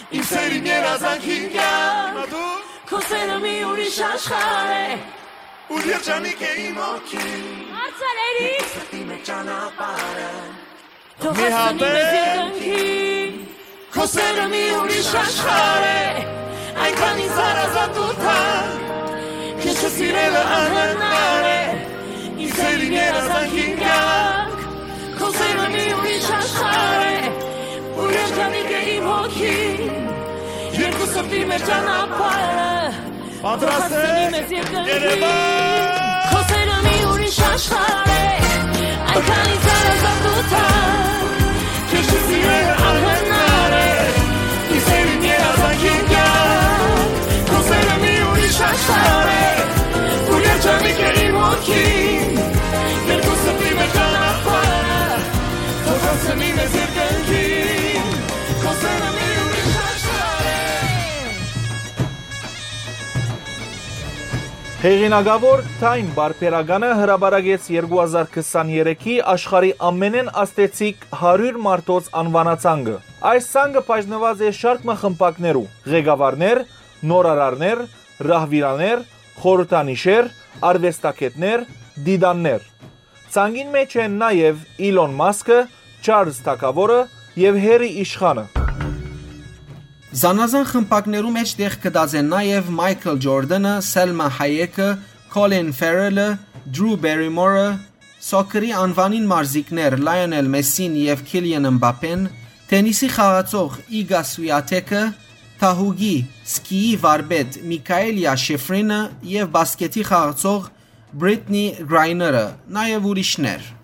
իմ սերին երազանքին կյանք, քո սերը մի ուրիշ աշխարհ է, որ երջանիկ է իմ հոգին, հարցալերի սրտի մեջ ճանապարհը, թող մի հասցնի մեզ հատեն երկնքին։ Քո սերը մի ուրիշ աշխարհ է, այնքան ինձ հարազատ ու թանկ, քեզ չսիրելը անհնար է, իմ սերին երազանքին կյանք, քո սերը մի ուրիշ աշխարհ է, որ երջանիկ է իմ հոգին, երկու սրտի մեր ճանապարհը, պատրաստ եք, Երևան։ Քո սերը մի ուրիշ աշխարհ է, այնքան ինձ հարազատ ու թանկ, քեզ չսիրելը անհնար է, իմ սերին երազանքին կյանք, քո սերը մի ուրիշ աշխարհ է, որ երջանիկ է իմ հոգին, երկու սրտի մեր ճանապարհը, թող հասցնի մեզ երկնքին, քո սերը մի ուրիշ աշխարհ է։ Հեղինակաւոր Time պարբերականը հրապարակեց երկու հազար քսաներեքի աշխարհի ամենէն ազդեցիկ հարիւր մարդոց անուանացանկը։ Այս ցանկը բաժնուած է շարք մը խմբակներու, ղեկավարներ, նորարարներ, ռահվիրաներ, խորհրդանիշեր, արուեստագէտներ, դիտաններ։ Ցանկին մէջ են նաեւ Իլոն Մասքը, Չարլզ Թագաւորը եւ Հերի Իշխանը։ Զանազան խմբակներու մէջ տեղ գտած են նաեւ Մայքլ Ջորդանը, Սելմա Հայեքը, Քոլին Ֆերելը, Դրու Բերիմորը, սոքերի անուանին մարզիկներ Լայոնել Մեսին եւ Քիլիան Մբապեն, թենիսի խաղացող Իգա Սուիաթեքը, թահուկի, սկիի վարպետ Միքայելիա Շիֆրինը եւ բասկեթի խաղացող Բրիտնի Գրայները, նաեւ ուրիշներ։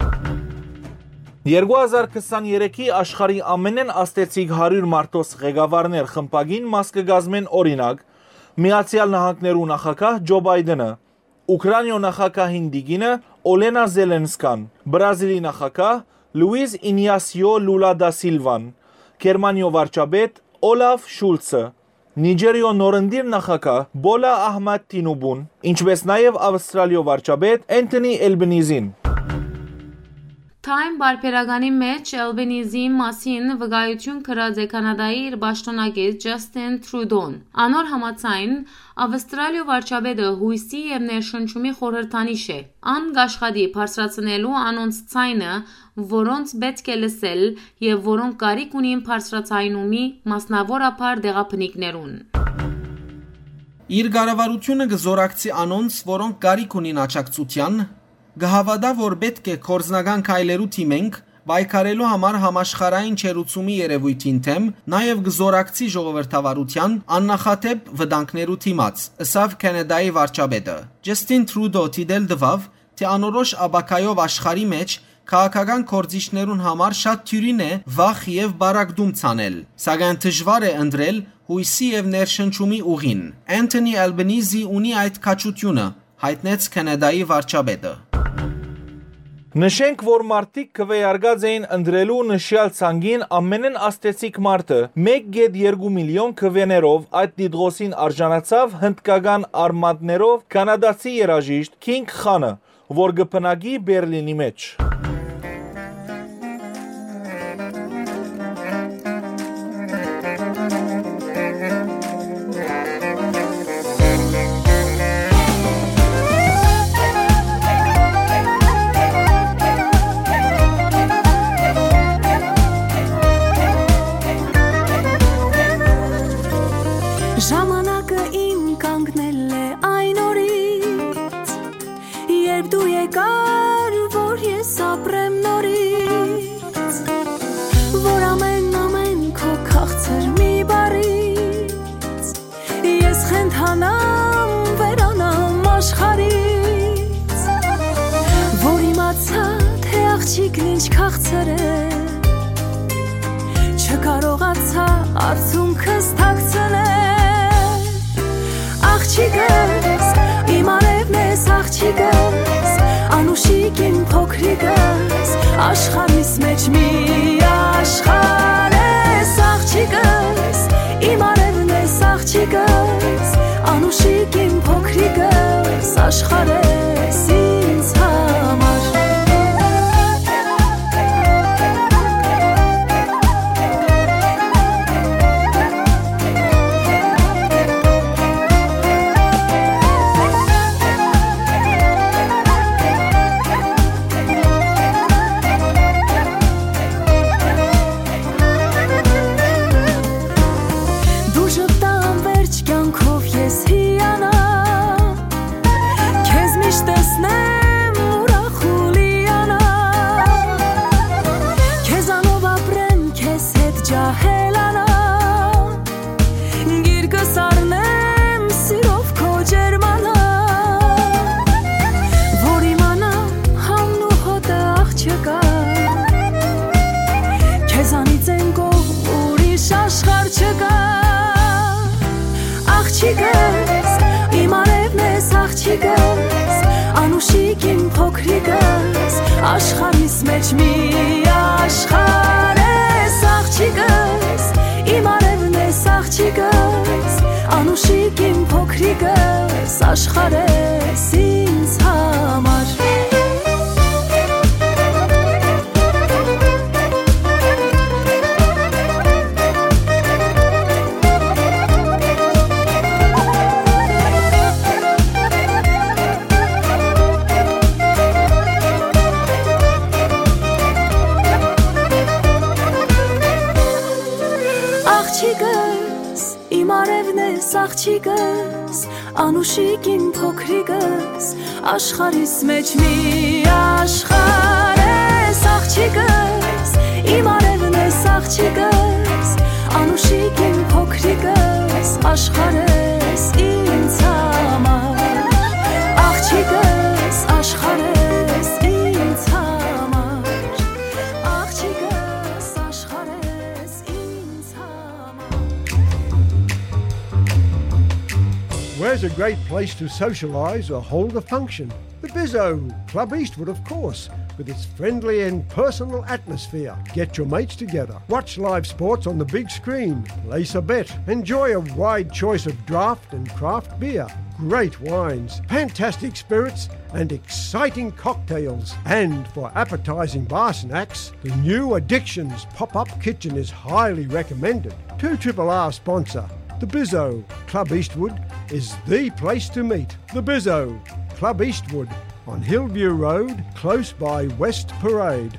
Երկու հազար քսաներեքի աշխարհի ամենէն ազդեցիկ հարիւր մարդոց ղեկավարներ խմբակին մաս կը կազմեն, օրինակ, Միացեալ Նահանգներու նախագահ Ջո Բայդենը, Ուքրաինիոյ նախագահին տիկինը Օլենա Զելենսկան, Բրազիլի նախագահ Լուիզ Ինյասիո Լուլա դա Սիլվան, Գերմանիոյ վարչապետ Օլաֆ Շուլցը, Նիջերիոյ նորընտիր նախագահ Բոլա Ահմադ Թինուբուն, ինչպէս նաեւ Աւստրալիոյ վարչապետ Էնթոնի Էլբինիզին։ Time պարբերականի մէջ Էլբինիզի մասին վկայութիւն գրած է Քանադայի իր պաշտօնակից Ջասթին Տրուդոն։ Անոր համաձայն, Աւստրալիոյ վարչապետը յոյսի եւ ներշնչումի խորհրդանիշ է։ Ան կ'աշխատի բարձրացնելու անոնց ձայնը, որոնց պէտք է լսել եւ որոնք կարիք ունին բարձրաձայնումի, մասնաւորաբար տեղաբնիկներուն։ Իր կառավարութիւնը կը զօրակցի անոնց, որոնք կարիք ունին աջակցութեան, կը հաւատայ, որ պէտք է գործնական քայլերու դիմենք, պայքարելու համար համաշխարհային չերուցումի երեւոյթին դէմ, նաեւ կը զօրակցի ժողովրդավարութեան աննախադէպ վտանգներու դիմաց, ըսաւ Քանադայի վարչապետը։ Ջասթին Տրուդո դիտել տուաւ, թէ անորոշ ապագայով աշխարհի մէջ քաղաքական գործիչներուն համար շատ դիւրին է վախ եւ պառակտում ցանել, սակայն դժուար է ընտրել յոյսի եւ ներշնչումի ուղին։ Anthony Albanese ունի այդ քաջութիւնը, յայտնեց Քանադայի վարչապետը։ Նշենք, որ մարդիկ քուէարկած էին ընտրելու նշեալ ցանկին ամենէն ազդեցիկ մարդը։ Մէկ կէտ երկու միլիոն քուէներով այդ տիտղոսին արժանացաւ հնդկական արմատներով քանադացի երաժիշտ Քինգ Խանը, որ կը բնակի Բերլինի մէջ։ Ժամանակը իմ կանգնել է այն օրից, երբ դու եկար, որ ես ապրեմ նորից, որ ամեն, ամեն քո քաղցր մի բարից ես խենթանամ, վերանամ աշխարհից, որ իմացա, թե աղջիկն ինչ քաղցր է, չկարողացա արցունքս թաքցնել։ Աղջիկս, իմ արեւն ես, աղջիկս, անուշիկ իմ փոքրիկս, աշխարհիս մէջ մի աշխարհ ես, աղջիկս, իմ արեւն ես, աղջիկս, անուշիկ իմ փոքրիկս, աշխարհ ես ինձ համար։ Դու ժպտան վերջ կյանքով ես հիանամ, քեզ միշտ տեսնեմ ուրախ ու լիանամ, քեզանով ապրեմ, քեզ հետ ջահելանամ, գիրկս առնեմ սիրով քո ջերմանամ, որ իմանամ համն ու հոտը աղջկա, քեզանից են կողմ ուրիշ աշխարհ չկա։ Աղջիկս, իմ արևն ես, աղջիկս, անուշիկ իմ փոքրիկս, աշխարհիս մեջ մի աշխարհ ես, աղջիկս, իմ արևն ես, աղջիկս, անուշիկ իմ փոքրիկս, աշխարհ ես ինձ համար։ Աղջիկս, իմ արևն ես, աղջիկս, անուշիկ իմ փոքրիկս, աշխարհիս մեջ մի աշխարհ ես, աղջիկս, իմ արևն ես, աղջիկս, անուշիկ իմ փոքրիկս, աշխարհ ես ինձ համար, աղջիկս, աշխարհ ես ինձ համար, աղջիկս, աշխարհ ես ինձ համար։ Where's a great place to socialise or hold a function? The Bizzo, Club Eastwood, of course, with its friendly and personal atmosphere. Get your mates together, watch live sports on the big screen, place a bet, enjoy a wide choice of draft and craft beer, great wines, fantastic spirits, and exciting cocktails. And for appetising bar snacks, the new Addictions pop-up kitchen is highly recommended. Two Triple R sponsor. The Bizzo, Club Eastwood, is the place to meet. The Bizzo, Club Eastwood, on Hillview Road, close by West Parade.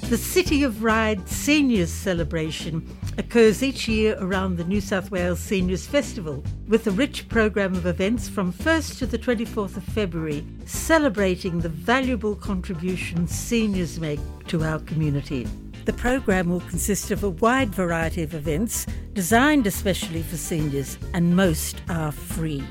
The City of Ryde Seniors Celebration occurs each year around the New South Wales Seniors Festival, with a rich programme of events from first to the twenty-fourth of February, celebrating the valuable contributions seniors make to our community. The programme will consist of a wide variety of events designed especially for seniors, and most are free.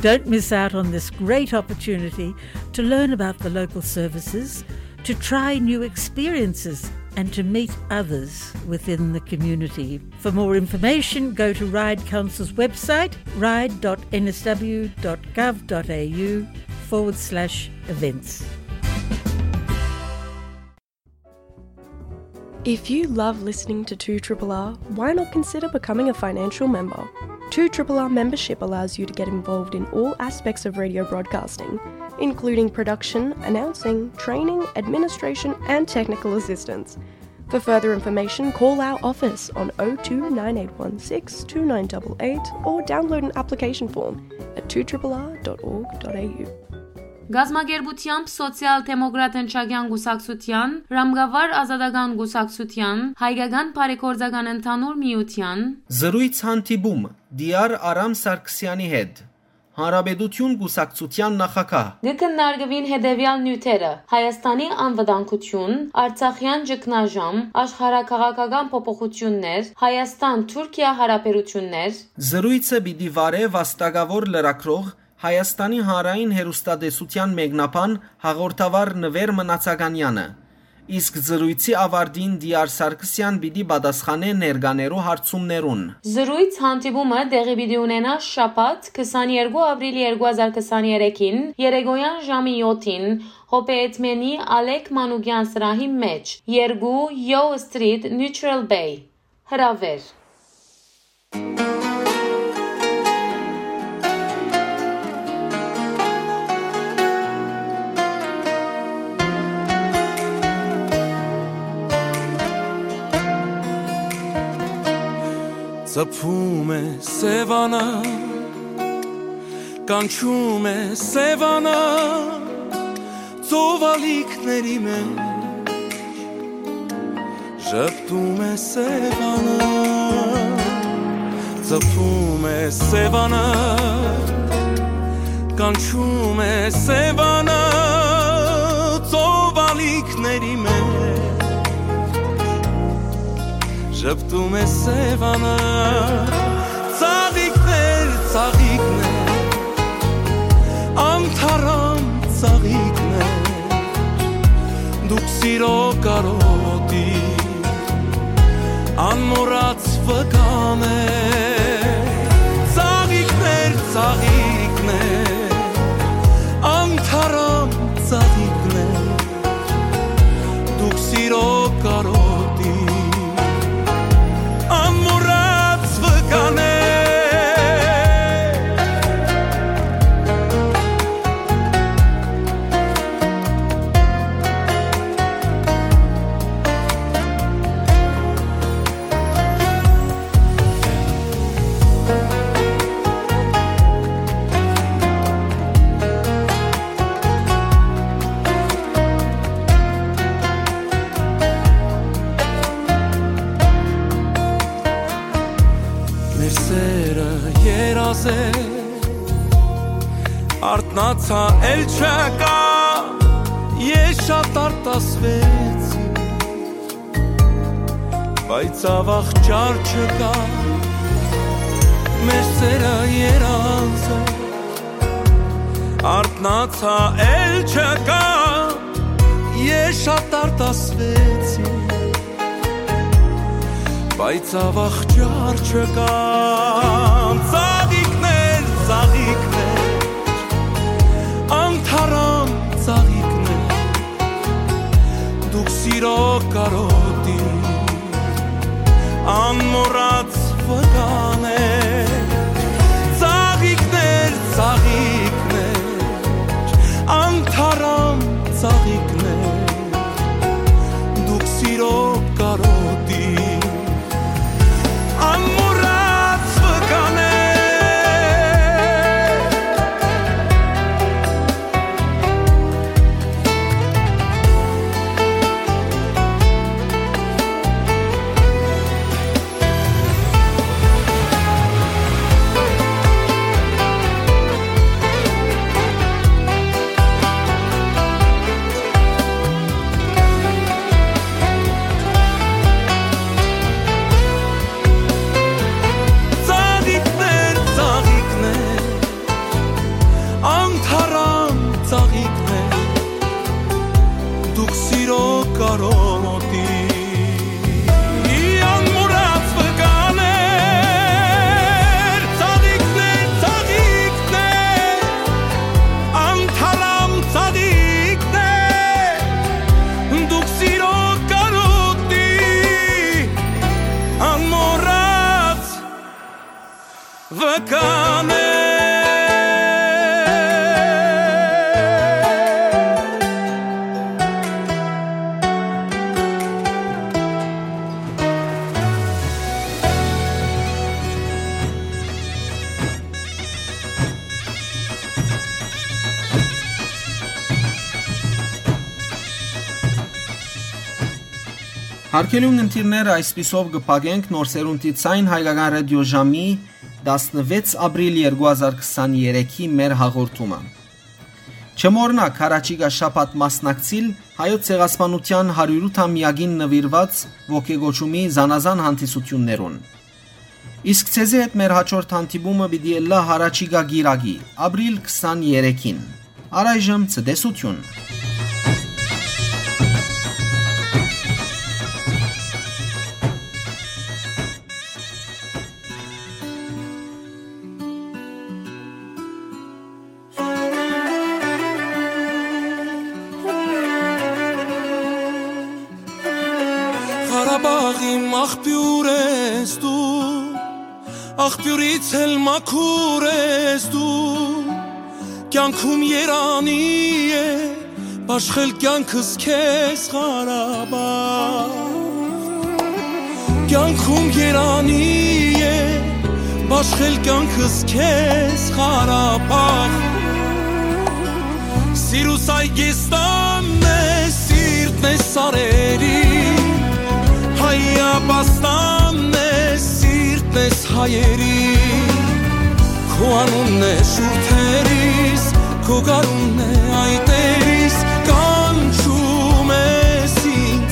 Don't miss out on this great opportunity to learn about the local services, to try new experiences, and to meet others within the community. For more information, go to Ryde Council's website, ryde dot n s w dot gov dot a u forward slash events. If you love listening to two triple R, why not consider becoming a financial member? Two triple R membership allows you to get involved in all aspects of radio broadcasting, including production, announcing, training, administration, and technical assistance. For further information, call our office on oh two nine eight one six two nine double eight or download an application form at two triple R dot org dot a u. Կազմակերպութեամբ Սոցիալ-դեմոկրատ ընչակեան կուսակցութեան, Ռամկավար ազատական կուսակցութեան, Հայկական բարեգործական ընդհանուր միութեան, զրոյց հանդիպում Դիար Արամ Սարգսեանի հետ, Հանրապետություն կուսակցութեան նախագահ։ Կը քննարկուին հետեւեալ նիւթերը. Հայաստանի անվտանգություն, Արցախեան ճգնաժամ, աշխարհաքաղաքական փոփոխութիւններ, Հայաստան-Թուրքիա յարաբերութիւններ։ Զրոյցը պիտի վարէ վաստակաւոր լրագրող, Հայաստանի Հանրային հեռուստատեսութեան մեկնաբան հաղորդավար Նուէր Մնացականեանը, իսկ զրոյցի աւարտին Դիար Սարգսեան պիտի պատասխանէ ներկաներու հարցումներուն։ Զրոյց հանդիպումը տեղի պիտի ունենայ շաբաթ, քսաներկու ապրիլ երկու հազար քսաներեքին, երեկոյեան ժամի յոթին, Հոբեյեդմենի Ալեք Մանուկեան սրահի մէջ, երկու Yo Street, Neutral Bay։ Հրաւէր։ Ծփում է Սեւանը, կանչում է Սեւանը, ծովալիքների մեջ ժպտում է Սեւանը, ծփում է Սեւանը, կանչում է Սեւանը, ծովալիքների մեջ ժպտում է Սեւանը, ծաղիկներ, ծաղիկներ, անթարամ ծաղիկներ, դուք սիրո կարոտի անմոռաց վկաներ, ծաղիկներ, ծաղիկներ, անթարամ ծաղիկներ, դուք սիրո կարոտի անմոռաց վկաներ։ Մեր սերը երազ է, արթնացայ, էլ չկայ, ես շատ արտասուեցի, բայց աւաղ ճար չկայ, մեր սերը երազ է, արթնացայ, էլ չկայ, ես շատ արտասուեցի, բայց աւաղ ճար չկայ, ծաղիկներ, ծաղիկներ, անթարամ ծաղիկներ, դուք սիրո կարոտի անմոռաց վկաներ, ծաղիկներ, ծաղիկներ, անթարամ ծաղիկներ, դուք սիրո կարոտի անմոռաց վկաներ։ Կանե։ Հարգելի ունգընտիրներ, այսպիսով կը փակենք Նոր Սերունդի Ձայն հայկական ռադիոժամի տասնվեց ապրիլ երկու հազար քսաներեքի մեր հաղորդումը։ Չմոռնաք, հառաջիկայ շաբաթ մասնակցիլ Հայոց ցեղասպանութեան հարիւրութամեակին նուիրուած ոգեկոչումի զանազան հանդիսութիւններուն։ Իսկ ձեզի հետ մեր յաջորդ հանդիպումը պիտի ըլլայ հառաջիկայ կիրակի, ապրիլ քսաներեքին։ Առայժմ ցտեսութիւն։ Ղարաբաղ իմ աղբիւր ես դու, աղբիւրից էլ մաքուր ես դու, կեանքում երանի է, բաշխել կեանքս քեզ Ղարաբաղ։ Կեանքում երանի է, բաշխել կեանքս քեզ Ղարաբաղ։ Սիրուս այգեստանն է, սիրտն է սարերի, հայապաստանն է, սիրտն ես հայերի։ Քո անունն է շուրթերիս, քո գարունն է այտերիս, կանչում ես ինձ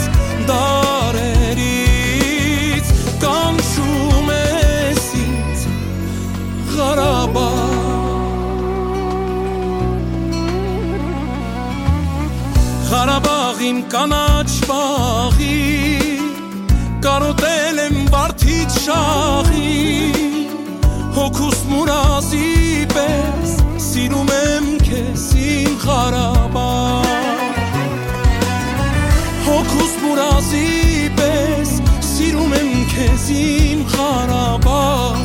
դարերից, կանչում ես ինձ Ղարաբաղ։ Ղարաբաղ իմ կանաչ բաղի, կարոտել եմ վարդից շաղի, հոգուս մուրազի պես սիրում եմ քեզ, իմ Ղարաբաղ։ Հոգուս մուրազի պես սիրում եմ քեզ, իմ Ղարաբաղ։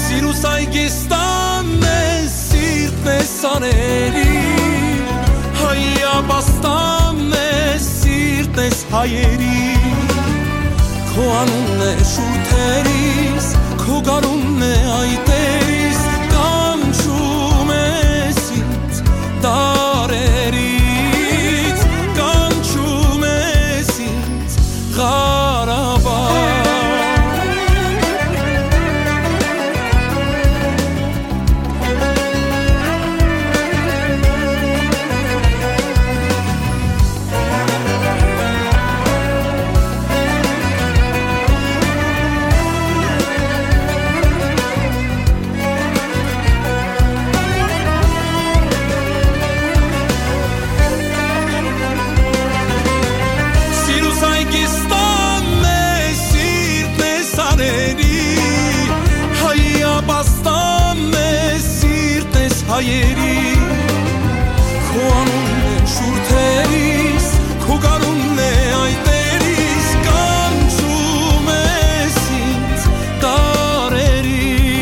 Սիրուս այգեստանն է, սիրտն է սարերի, հայապաստանն է, սիրտն ես հայերի։ Քո անունն է շուրթերիս, քո գարունն է այտերիս, կանչում ես ինձ դարերից, կանչում ես ինձ Ղարաբաղ։ Սիրուս այգեստանն է, սիրտն է սարերի, հայապաստանն է, սիրտն ես հայերի։ Քո անունն է շուրթերիս, քո գարունն է այտերիս, կանչում ես ինձ դարերից,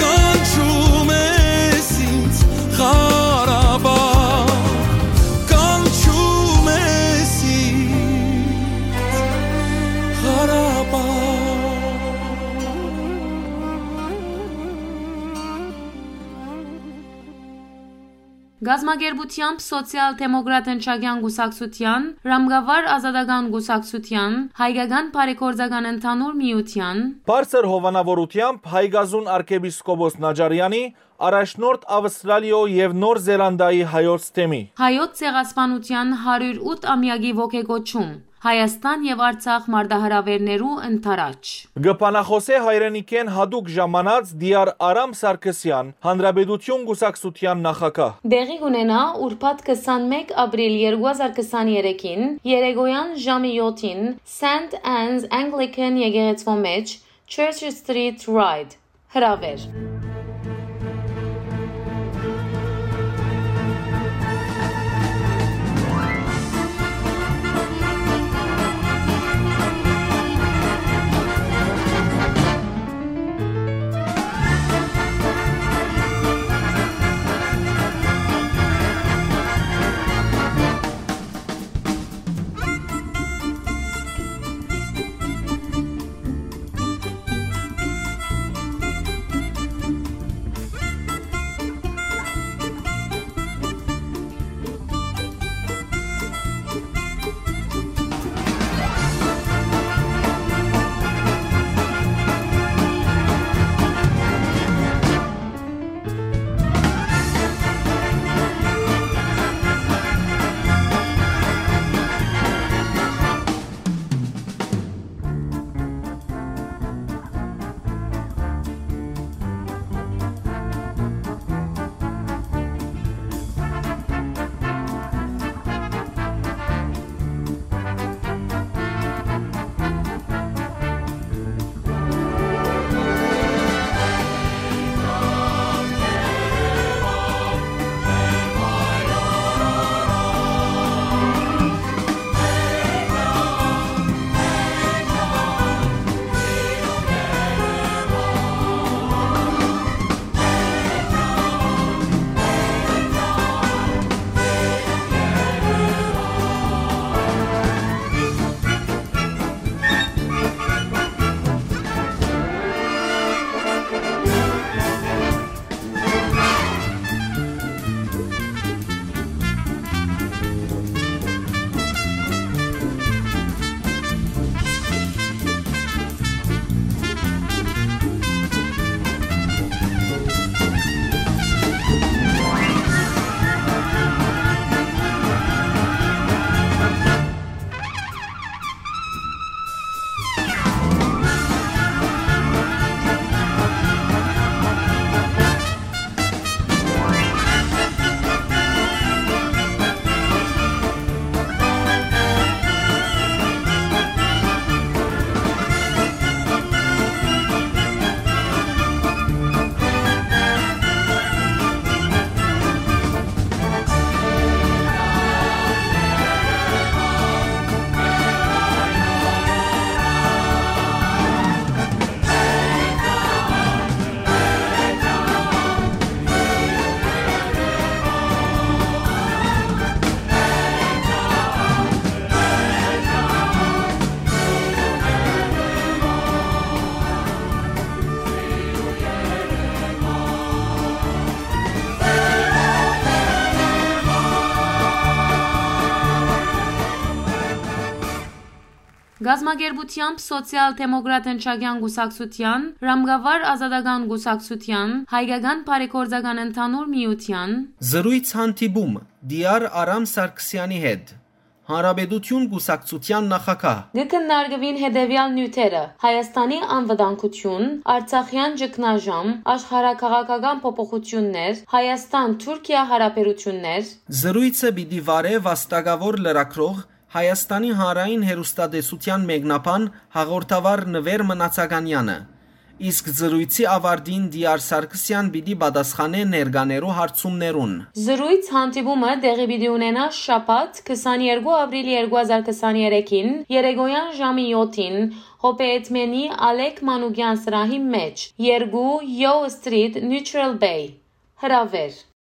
կանչում ես ինձ Ղարաբաղ, կանչում ես ինձ Ղարաբաղ։ Կազմակերպութեամբ Սոցիալ-դեմոկրատ ընչակեան կուսակցութեան, Ռամկավար ազատական կուսակցութեան, Հայկական բարեգործական ընդհանուր միութեան, Բարձր հովանաւորութեամբ Հայկազուն արքեպիսկոպոս Նաճարեանի, առաջնորդ Ավստրալիոյ եւ Նոր Զելանդիայի հայոց թեմի, Հայոց ցեղասպանութեան հարիւր ութ ամեակի ոգեկոչում, Հայաստան եւ Արցախ մարտահրաւէրներու ընդառաջ։ Կը բանախօսէ հայրենիքէն յատուկ ժամանած Տիար Արամ Սարգսեան, Հանրապետություն կուսակցութեան նախագահ։ Տեղի կունենայ ուրբաթ քսանմէկ ապրիլ երկու հազար քսաներեքին երեկոյան ժամը յոթին Սենթ Աննս Անգլիքան եկեղեցւոյ մէջ, Church Street Ride, հրաւէր։ կազմակերպութեամբ Սոցիալ Դեմոկրատ Ընչակեան Կուսակցութեան, Ռամկավար Ազատական Կուսակցութեան, Հայկական Բարեգործական Ընդհանուր Միութեան։ Զրոյց հանդիպում Տիար Արամ Սարգսեանի հետ, Հանրապետություն կուսակցութեան նախագահ։ Կը քննարկուին հետեւեալ նիւթերը՝ Հայաստանի անվտանգություն, Արցախեան ճգնաժամ, աշխարհաքաղաքական փոփոխութիւններ, Հայաստան-Թուրքիա յարաբերութիւններ։ Զրոյցը պիտի վարէ վաստակաւոր լրագրող, Հայաստանի Հանրային Հեռուստատեսութեան մեկնաբան հաղորդավար Նուէր Մնացականեանը, իսկ զրոյցի աւարտին Տիար Սարգսեան պիտի պատասխանէ ներկաներու հարցումներուն։ Զրոյց հանդիպումը տեղի պիտի ունենայ շաբաթ, քսաներկու ապրիլ երկու հազար քսաներեքին, երեկոյան ժամի յոթին, Հոբեյեդմենի Ալեք Մանուկեան սրահի մէջ, երկու Yo Street, Neutral Bay։ Հրաւէր։